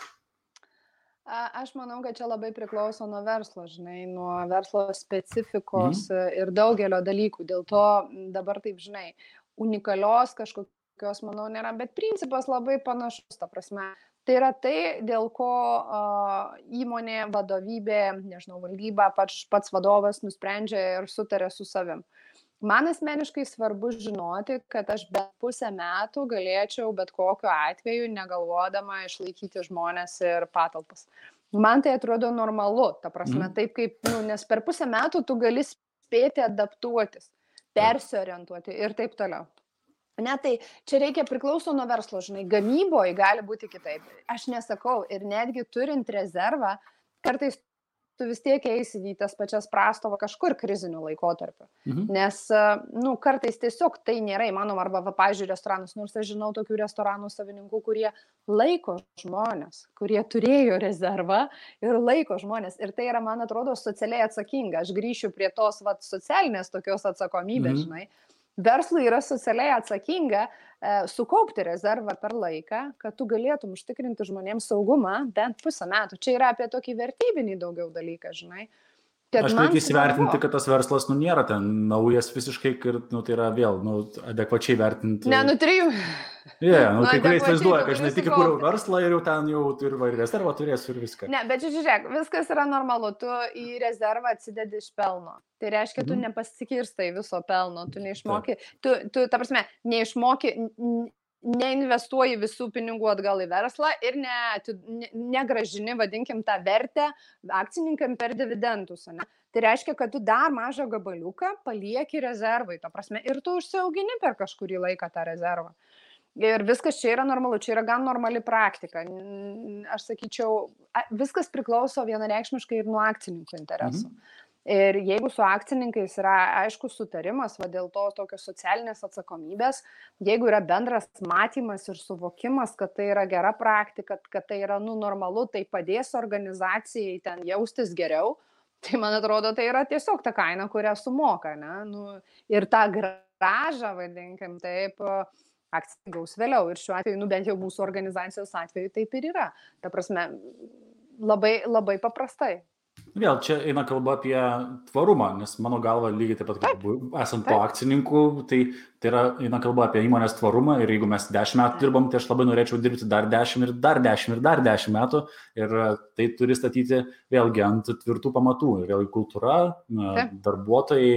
Aš manau, kad čia labai priklauso nuo verslo, žinai, nuo verslo specifikos ir daugelio dalykų. Dėl to dabar taip, žinai, unikalios kažkokios, manau, nėra, bet principas labai panašus, ta prasme. Tai yra tai, dėl ko įmonė, vadovybė, nežinau, valdyba, pats vadovas nusprendžia ir sutarė su savim. Man asmeniškai svarbu žinoti, kad aš bent pusę metų galėčiau bet kokiu atveju negalvodama išlaikyti žmonės ir patalpas. Man tai atrodo normalu, ta prasme, taip kaip, nes per pusę metų tu gali spėti adaptuotis, persiorientuoti ir taip toliau. Ne, tai čia reikia priklauso nuo verslo, žinai, gamyboje gali būti kitaip. Aš nesakau, ir netgi turint rezervą, kartais tu vis tiek eisi į tas pačias prastovą kažkur kriziniu laikotarpiu. Nes, kartais tiesiog tai nėra įmanoma, arba, pavyzdžiui, restoranus, nors aš žinau tokių restoranų savininkų, kurie laiko žmonės, kurie turėjo rezervą ir laiko žmonės. Ir tai yra, man atrodo, socialiai atsakinga. Aš grįšiu prie tos socialinės tokios atsakomybės, žinai. Verslui yra socialiai atsakinga sukaupti rezervą per laiką, kad tu galėtum užtikrinti žmonėms saugumą bent pusę metų. Čia yra apie tokį vertybinį daugiau dalyką, žinai. Aš reikia įsivertinti, kad tas verslas, nėra ten naujas visiškai, ir, tai yra vėl, adekvačiai vertinti. Ne, 3. Kai kurie įsivaizduoja, kad, žinai, tik įkūriau verslą ir jau ten jau ir rezervą turėsiu ir viską. Ne, bet žiūrėk, viskas yra normalu, tu į rezervą atsidedi iš pelno. Tai reiškia, tu nepasikirstai viso pelno, tu neišmoki, tu ta prasme, neišmoki, neinvestuoji visų pinigų atgal į verslą ir negražini, vadinkim, tą vertę akcininkam per dividendus. Ne? Tai reiškia, kad tu dar mažą gabaliuką palieki rezervai, ta prasme, ir tu užsiaugini per kažkurį laiką tą rezervą. Ir viskas čia yra normalu, čia yra gan normali praktika. Aš sakyčiau, viskas priklauso vienareikšmiškai ir nuo akcininkų interesų. Ir jeigu su akcininkais yra aiškus sutarimas, dėl to tokios socialinės atsakomybės, jeigu yra bendras matymas ir suvokimas, kad tai yra gera praktika, kad tai yra normalu, tai padės organizacijai ten jaustis geriau, tai man atrodo, tai yra tiesiog ta kaina, kurią sumoka. Ne? Ir tą grąžą, vadinkim, taip, akcija gaus vėliau. Ir šiuo atveju, bent jau mūsų organizacijos atveju taip ir yra. Ta prasme, labai, labai paprastai. Vėl čia eina kalba apie tvarumą, nes mano galva lygiai taip pat, kaip esant po akcininkų, tai eina kalba apie įmonės tvarumą ir jeigu mes 10 metų dirbam, tai aš labai norėčiau dirbti dar 10 ir dar 10 ir dar 10 metų ir tai turi statyti vėlgi ant tvirtų pamatų. Ir vėlgi kultūra, darbuotojai,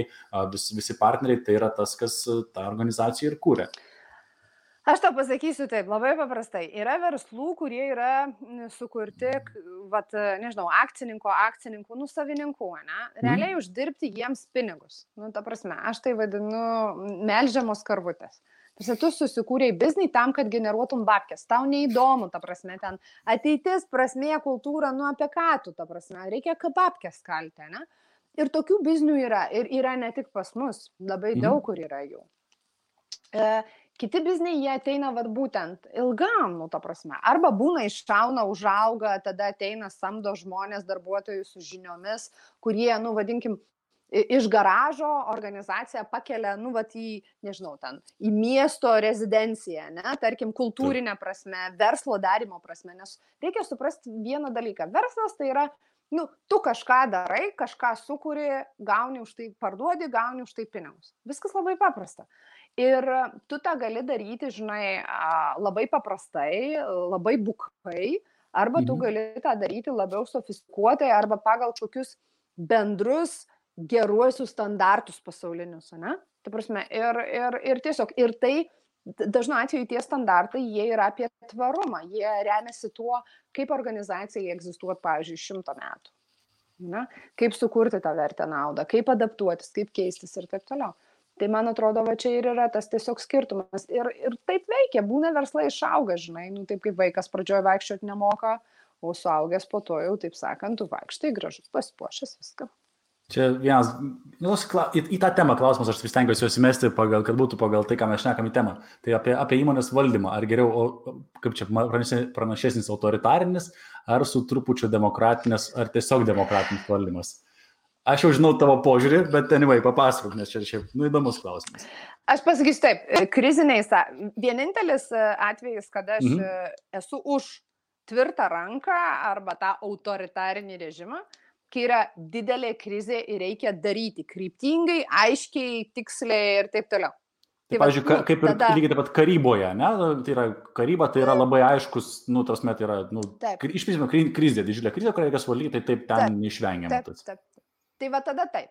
visi partneriai, tai yra tas, kas tą organizaciją ir kūrė. Aš tau pasakysiu taip, labai paprastai. Yra verslų, kurie yra sukurti, akcininkų, savininkų, ne? Realiai uždirbti jiems pinigus. Ta prasme, aš tai vadinu melžiamos karvutės. Tu susikūrei biznį tam, kad generuotum babkes. Tau neįdomu, ta prasme, ten ateitis, prasmė, kultūra, apie ką tu, ta prasme, reikia babkes kalti, ne? Ir tokių biznių yra. Ir yra ne tik pas mus, labai daug kur yra jų. Kiti bizniai, jie ateina būtent ilgam, ta prasme. Arba būna iššauna, užauga, tada ateina, samdo žmonės, darbuotojus su žiniomis, kurie, vadinkim, iš garažo organizaciją pakelia, į miesto rezidenciją, ne, tarkim, kultūrinę prasme, verslo darimo prasme, nes reikia suprasti vieną dalyką. Verslas tai yra, tu kažką darai, kažką sukuri, gauni už tai, parduodi, gauni už tai pinigus. Viskas labai paprasta. Ir tu tą gali daryti, žinai, labai paprastai, labai bukai, arba tu gali tą daryti labiau sofistikuotai, arba pagal kokius bendrus geruosius standartus pasaulinius, ne? Tai prasme, ir tiesiog, ir tai, dažnu atveju tie standartai, jie yra apie tvarumą, jie remiasi tuo, kaip organizacijai egzistuoti, pavyzdžiui, 100 metų. Ne? Kaip sukurti tą vertę naudą, kaip adaptuotis, kaip keistis ir taip toliau. Tai man atrodo, čia ir yra tas tiesiog skirtumas. Ir taip veikia, būna verslai išauga, žinai, taip kaip vaikas pradžioje vaikščioti nemoka, o suaugęs po to jau, taip sakant, tu vaikštai gražus, pasipuošęs viską. Čia vienas, į tą temą klausimas, aš vis stengiuosi juos įmesti, kad būtų pagal tai, ką mes šnekam į temą. Tai apie įmonės valdymą, ar geriau, kaip čia pranašesnis autoritarinis, ar su trupučiu demokratinis, ar tiesiog demokratinis valdymas. Aš jau žinau tavo požiūrį, bet anyway, papasakok, nes čia šiaip įdomus klausimas. Aš pasakysiu taip, kriziniais, vienintelis atvejis, kada aš esu už tvirtą ranką arba tą autoritarinį režimą, kai yra didelė krizė ir reikia daryti kryptingai, aiškiai, tiksliai ir taip toliau. Tai pavyzdžiui, kaip ir lygiai taip pat karyboje, ne? Tai yra karyba, tai yra labai aiškus, tarsi tai yra, iš principo krizė, didžiulė krizė, kurią reikia suvaldyti, tai taip ten neišvengiama. Taip. Tai va tada taip,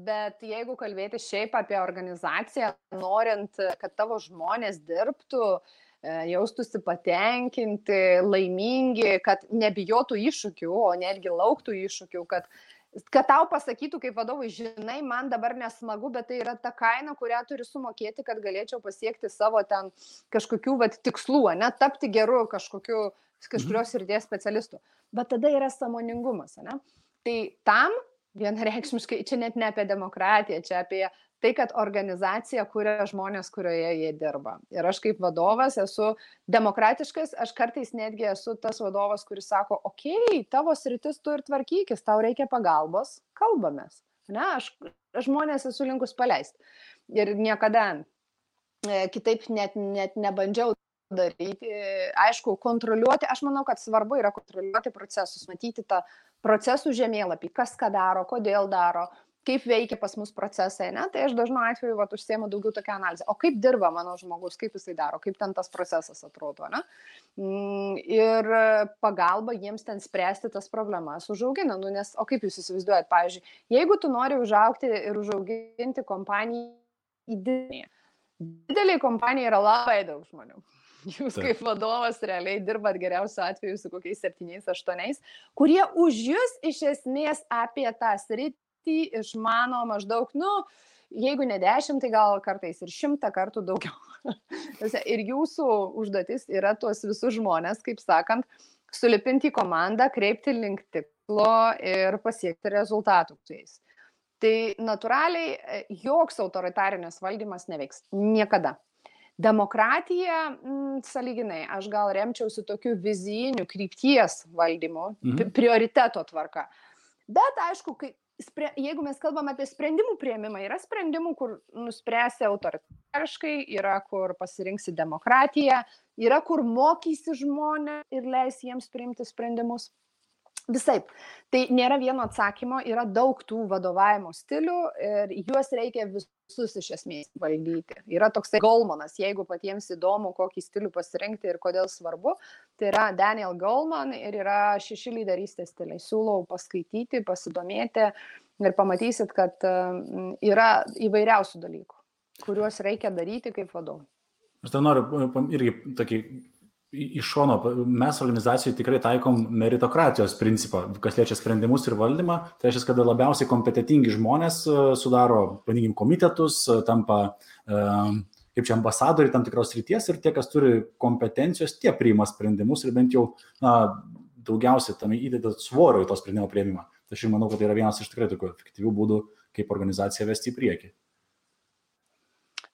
bet jeigu kalbėti šiaip apie organizaciją, norint, kad tavo žmonės dirbtų, jaustųsi patenkinti, laimingi, kad nebijotų iššūkių, o netgi lauktų iššūkių, kad tau pasakytų kaip vadovui, žinai, man dabar nesmagu, bet tai yra ta kaina, kurią turiu sumokėti, kad galėčiau pasiekti savo ten kažkokių tikslų, ne, tapti geru kažkurios srities specialistu. Bet tada yra sąmoningumas, ne? Tai tam vienareikšmiškai, čia net ne apie demokratiją, čia apie tai, kad organizacija kuria žmonės, kurioje jie dirba. Ir aš kaip vadovas esu demokratiškas, aš kartais netgi esu tas vadovas, kuris sako, okei, tavo sritis tu ir tvarkykis, tau reikia pagalbos, kalbamės. Ne, aš žmonės esu linkus paleisti. Ir niekada kitaip net nebandžiau daryti. Aišku, kontroliuoti, aš manau, kad svarbu yra kontroliuoti procesus, matyti tą procesų žemėlapį, kas ką daro, kodėl daro, kaip veikia pas mus procesai, ne? Tai aš dažnu atveju užsiemu daugiau tokią analizę. O kaip dirba mano žmogus, kaip jisai daro, kaip ten tas procesas atrodo, ne? Ir pagalba jiems ten spręsti tas problemas užaugina. Nes, o kaip jūs įsivaizduojat, pavyzdžiui, jeigu tu nori užaugti ir užauginti kompaniją į didelį kompaniją yra labai daug žmonių. Jūs kaip vadovas realiai dirbat geriausiu atveju su kokiais 7-8, kurie už jūs iš esmės apie tą sritį išmano maždaug, jeigu ne 10, tai gal kartais ir 100 kartų daugiau. Ir jūsų užduotis yra tuos visus žmonės, kaip sakant, sulipinti į komandą, kreipti link tikslo ir pasiekti rezultatų su jais. Tai natūraliai joks autoritarinis valdymas neveiks. Niekada. Demokratija, sąlyginai, aš gal remčiausi tokiu vizijiniu krypties valdymu, prioriteto tvarka. Bet aišku, jeigu mes kalbam apie sprendimų priėmimą, yra sprendimų, kur nuspręsi autoritariškai, yra kur pasirinksi demokratiją, yra kur mokysi žmonės ir leisi jiems priimti sprendimus. Visaip. Tai nėra vieno atsakymo, yra daug tų vadovavimo stilių ir juos reikia visus iš esmės valdyti. Yra toksai Golemanas, jeigu patiems įdomu, kokį stilių pasirinkti ir kodėl svarbu, tai yra Daniel Goleman ir yra 6 lyderystės stiliai. Siūlau paskaityti, pasidomėti ir pamatysit, kad yra įvairiausių dalykų, kuriuos reikia daryti kaip vadovai. Aš tai noriu irgi tokį iš šono, mes organizacijoje tikrai taikom meritokratijos principą, kas liečia sprendimus ir valdymą. Tai reiškia, kad labiausiai kompetentingi žmonės sudaro, vadinkim, komitetus, tampa kaip čia ambasadoriai tam tikros srities ir tie, kas turi kompetencijos, tie priima sprendimus ir bent jau daugiausiai tam įdeda svorio į to sprendimo priėmimą. Tai aš manau, kad tai yra vienas iš tikrai tokių efektyvių būdų, kaip organizaciją vesti į priekį.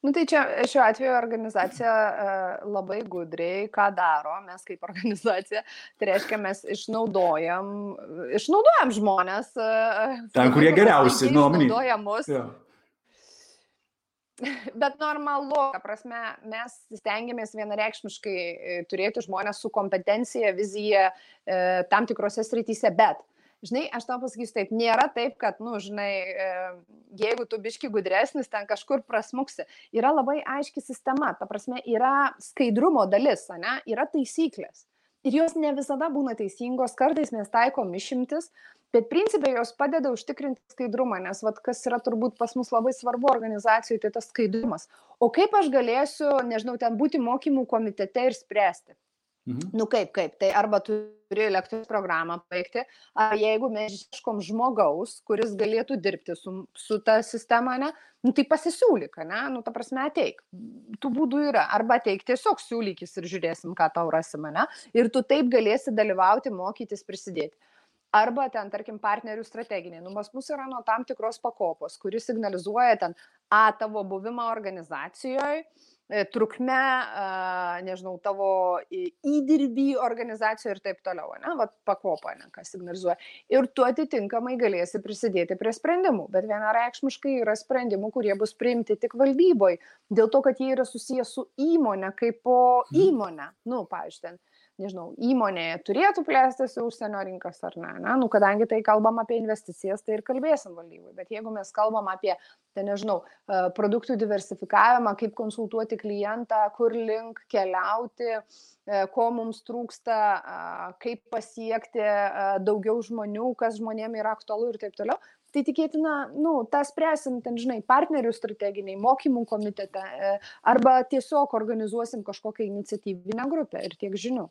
Tai čia šiuo atveju organizacija labai gudriai, ką daro, mes kaip organizacija, tai reiškia, mes išnaudojam žmonės. Ten, kurie geriausi, išnaudoja mus. Ja. Bet normalu, ta prasme, mes stengiamės vienareikšmiškai turėti žmonės su kompetencija, vizija tam tikrose srityse, bet žinai, aš tau pasakysiu taip, nėra taip, kad, jeigu tu biški gudresnis, ten kažkur prasmuksi. Yra labai aiški sistema, ta prasme, yra skaidrumo dalis, ne? Yra taisyklės. Ir jos ne visada būna teisingos, kartais mes taikom išimtis, bet principai jos padeda užtikrinti skaidrumą, nes kas yra turbūt pas mus labai svarbu organizacijoje, tai tas skaidrumas. O kaip aš galėsiu, nežinau, ten būti mokymų komitete ir spręsti? Kaip, tai arba turi lektoriaus programą pabaigti, ar jeigu mes ieškom žmogaus, kuris galėtų dirbti su ta sistema, ne, tai pasisiūlyk, ne, ta prasme ateik. Tų būdų yra, arba ateik tiesiog siūlykis ir žiūrėsim, ką tau rasim, ne, ir tu taip galėsi dalyvauti, mokytis, prisidėti. Arba ten, tarkim, partnerių strateginiai. Pas mus yra nuo tam tikros pakopos, kuris signalizuoja ten tavo buvimą organizacijoje, trukme, nežinau, tavo įdirbį organizacijoje ir taip toliau, ne, pakopa, ne, kas signalizuoja. Ir tu atitinkamai galėsi prisidėti prie sprendimų, bet vienareikšmiškai yra sprendimų, kurie bus priimti tik valdyboje, dėl to, kad jie yra susijęs su įmonė kaip po įmonę. Pavyzdžiui, ten, nežinau, įmonėje turėtų plėstis į užsienio rinkas ar ne, kadangi tai kalbam apie investicijas, tai ir kalbėsim valdybai, bet jeigu mes kalbam apie, tai nežinau, produktų diversifikavimą, kaip konsultuoti klientą, kur link keliauti, ko mums trūksta, kaip pasiekti daugiau žmonių, kas žmonėm yra aktualu ir taip toliau, tai tikėtina, tą spręsim, ten, žinai, partnerių strateginiai, mokymų komitete, arba tiesiog organizuosim kažkokią iniciatyvinę grupę ir tiek žinių.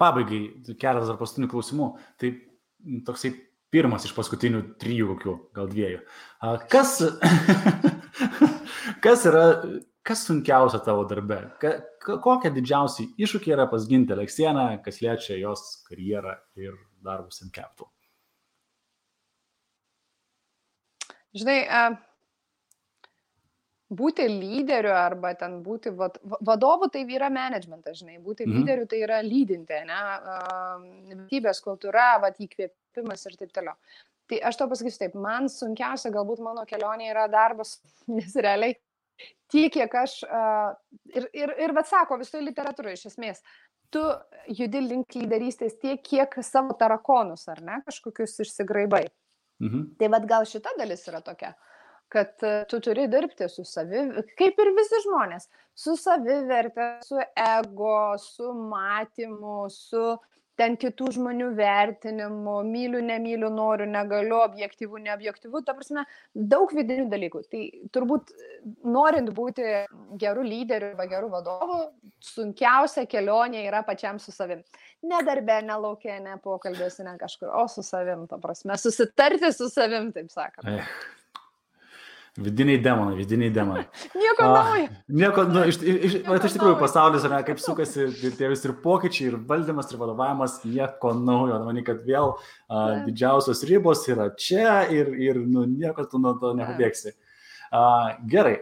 Pabaigai, keletas dar paskutinių klausimų. Tai toksai pirmas iš paskutinių 3 kokių, gal 2. Kas sunkiausia tavo darbe? Kokie didžiausiai iššūkiai yra pas Gintę Aleksieną, kas liečia jos karjerą ir darbus in Capital? Žinai, būti lyderiu arba ten būti vadovu, tai yra managementas, žinai, būti lyderiu tai yra lydinti, ne, vertybės, kultūra, įkvėpimas ir taip toliau. Tai aš to pasakysiu taip, man sunkiausia galbūt mano kelionė yra darbas, nes realiai tiek, kiek aš, ir sako visoje literatūroje iš esmės, tu judi link lyderystės tiek, kiek savo tarakonus, ar ne, kažkokius išsigraibai. Tai gal šita dalis yra tokia, kad tu turi dirbti su kaip ir visi žmonės, su savivertė, su ego, su matymu, su ten kitų žmonių vertinimu, myliu, nemyliu, noriu, negaliu, objektyvu, neobjektyvu, ta prasme, daug vidinių dalykų. Tai turbūt norint būti gerų lyderių arba gerų vadovų, sunkiausia kelionė yra pačiam su savim. Ne darbe, ne lauke, ne pokalbėse, ne kažkur, o su savim, ta prasme, susitarti su savim, taip sakant. Vidiniai demonai. Nieko naujo. Nieko, iš tikrųjų pasaulis, kaip sukasi tie visi ir pokyčiai, ir valdymas, ir vadovavimas, nieko naujo. Manau, kad vėl didžiausios ribos yra čia ir nieko tu nuo to nepabėgsi. Gerai,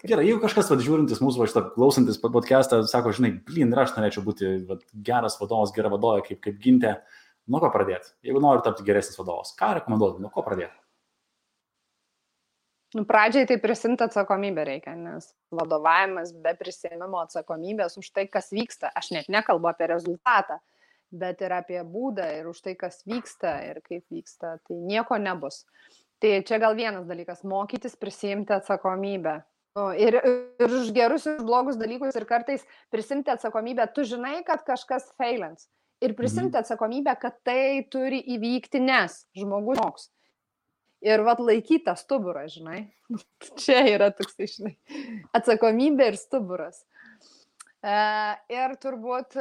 jeigu kažkas žiūrintis mūsų, klausantis podcastą, sako, žinai, ir aš norėčiau būti geras vadovas, gera vadovė, kaip Gintė, nuo ko pradėti? Jeigu nori tapti geresnis vadovas, ką rekomenduotum, nuo ko pradėti? Pradžiai tai prisimti atsakomybę reikia, nes vadovavimas be prisėmimo atsakomybės už tai, kas vyksta. Aš net nekalbu apie rezultatą, bet ir apie būdą ir už tai, kas vyksta ir kaip vyksta. Tai nieko nebus. Tai čia gal vienas dalykas – mokytis prisimti atsakomybę. Ir už gerus ir blogus dalykus ir kartais prisimti atsakomybę. Tu žinai, kad kažkas failins. Ir prisimti atsakomybę, kad tai turi įvykti, nes žmogus moks. Ir laikyta stuburą, žinai. Čia yra toksai, žinai, atsakomybė ir stuburas. Ir turbūt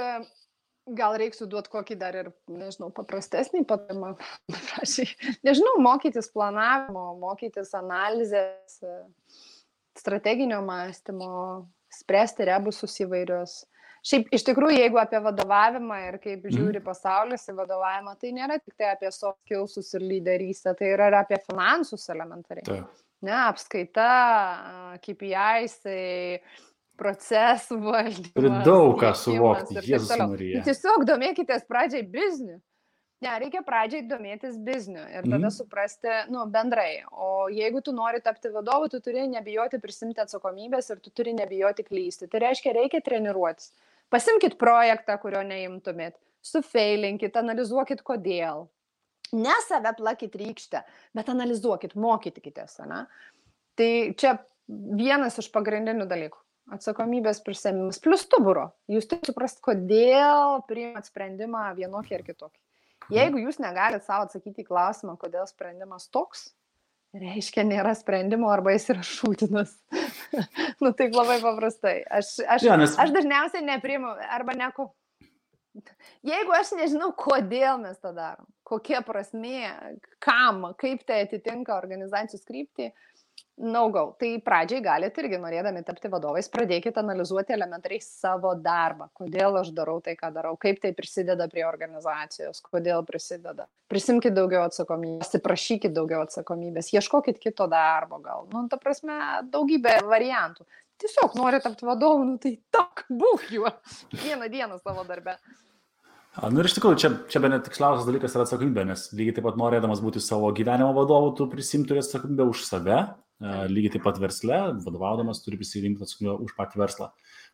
gal reiks duoti kokį dar ir, nežinau, paprastesnį patarimą. Nežinau, mokytis planavimo, mokytis analizės, strateginio mąstymo, spręsti rebusus įvairius. Šiaip, iš tikrųjų, jeigu apie vadovavimą ir kaip žiūri pasaulis į vadovavimą, tai nėra tik tai apie soft skillsus ir lyderystę, tai yra apie finansus elementariai. Ne, apskaita, KPIs, procesų valdymas. Turi daug ką suvokti, Jėzus Marija. Tiesiog domėkitės pradžiai bizniu. Ne, reikia pradžiai domėtis bizniu ir tada suprasti, bendrai. O jeigu tu nori tapti vadovu, tu turi nebijoti prisimti atsakomybės ir tu turi nebijoti klysti. Tai reiškia, reikia treniruotis. Pasimkit projektą, kurio neimtumėt, sufeilinkit, analizuokit kodėl. Ne save plakit rykštę, bet analizuokit, mokykitės. Tai čia vienas iš pagrindinių dalykų. Atsakomybės prisėmimas plus stuburo. Jūs turite suprasti, kodėl priimat sprendimą vienokį ar kitokį. Jeigu jūs negalite savo atsakyti į klausimą, kodėl sprendimas toks, reiškia, nėra sprendimo arba jis yra šūtinas. Taip labai paprastai. Aš dažniausiai nepriimu arba neko. Jeigu aš nežinau, kodėl mes tą darom, kokia prasmė, kam, kaip tai atitinka organizacijos kryptį, no-go. Tai pradžiai galite irgi, norėdami tapti vadovais, pradėkite analizuoti elementariai savo darbą. Kodėl aš darau tai, ką darau, kaip tai prisideda prie organizacijos, kodėl prisideda. Prisimkite daugiau atsakomybės, prašykite daugiau atsakomybės, ieškokit kito darbo gal. Ta prasme, daugybė variantų. Tiesiog nori tapti vadovu, tai būk juo vieną dieną savo darbe. Ir iš tikrųjų, čia bene tiksliausias dalykas yra atsakomybė, nes lygiai taip pat norėdamas būti savo gyvenimo vadovu, tu prisimti turi atsakomybę už save, lygiai taip pat versle, vadovaudamas turi prisimti atsakomybę už patį verslą.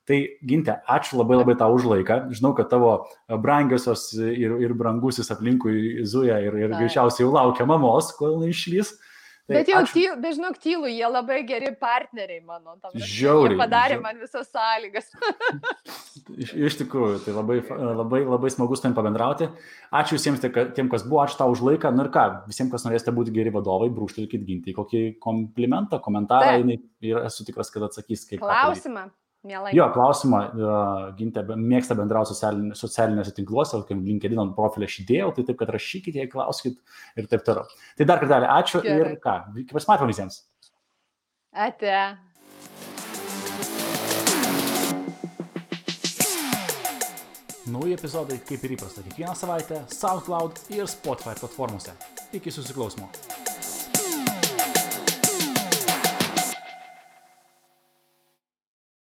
Tai Gintė, ačiū labai tau už laiką. Žinau, kad tavo brangiosios ir brangusis aplinkui zuja ir greičiausiai jau laukia mamos, kol išlys. Tai bet jau dažnok tylu, jie labai geri partneriai mano. Žiauriai. Jie padarė man visas sąlygas. Iš tikrųjų, tai labai smagu su tavim pabendrauti. Ačiū visiems tiem, kas buvo, ačiū tau už laiką. Ir ką, visiems, kas norėsite būti geri vadovai, brūkštelkit Gintį kokį komplimentą, komentarą, ir esu tikras, kad atsakys. Klausimą. Mielai. Jo, klausimą, Gintė mėgsta bendrauti socialinėse tinkluose, LinkedIn profilį aš įdėjau, tai taip, kad rašykite, jei klauskit ir taip toliau. Tai dar kartelį ačiū. Gerai. Ir ką, pasimatome visiems. Ate. nauji epizodai, kaip ir įprasta, kiekvieną savaitę SoundCloud ir Spotify platformose. Iki susiklausimo.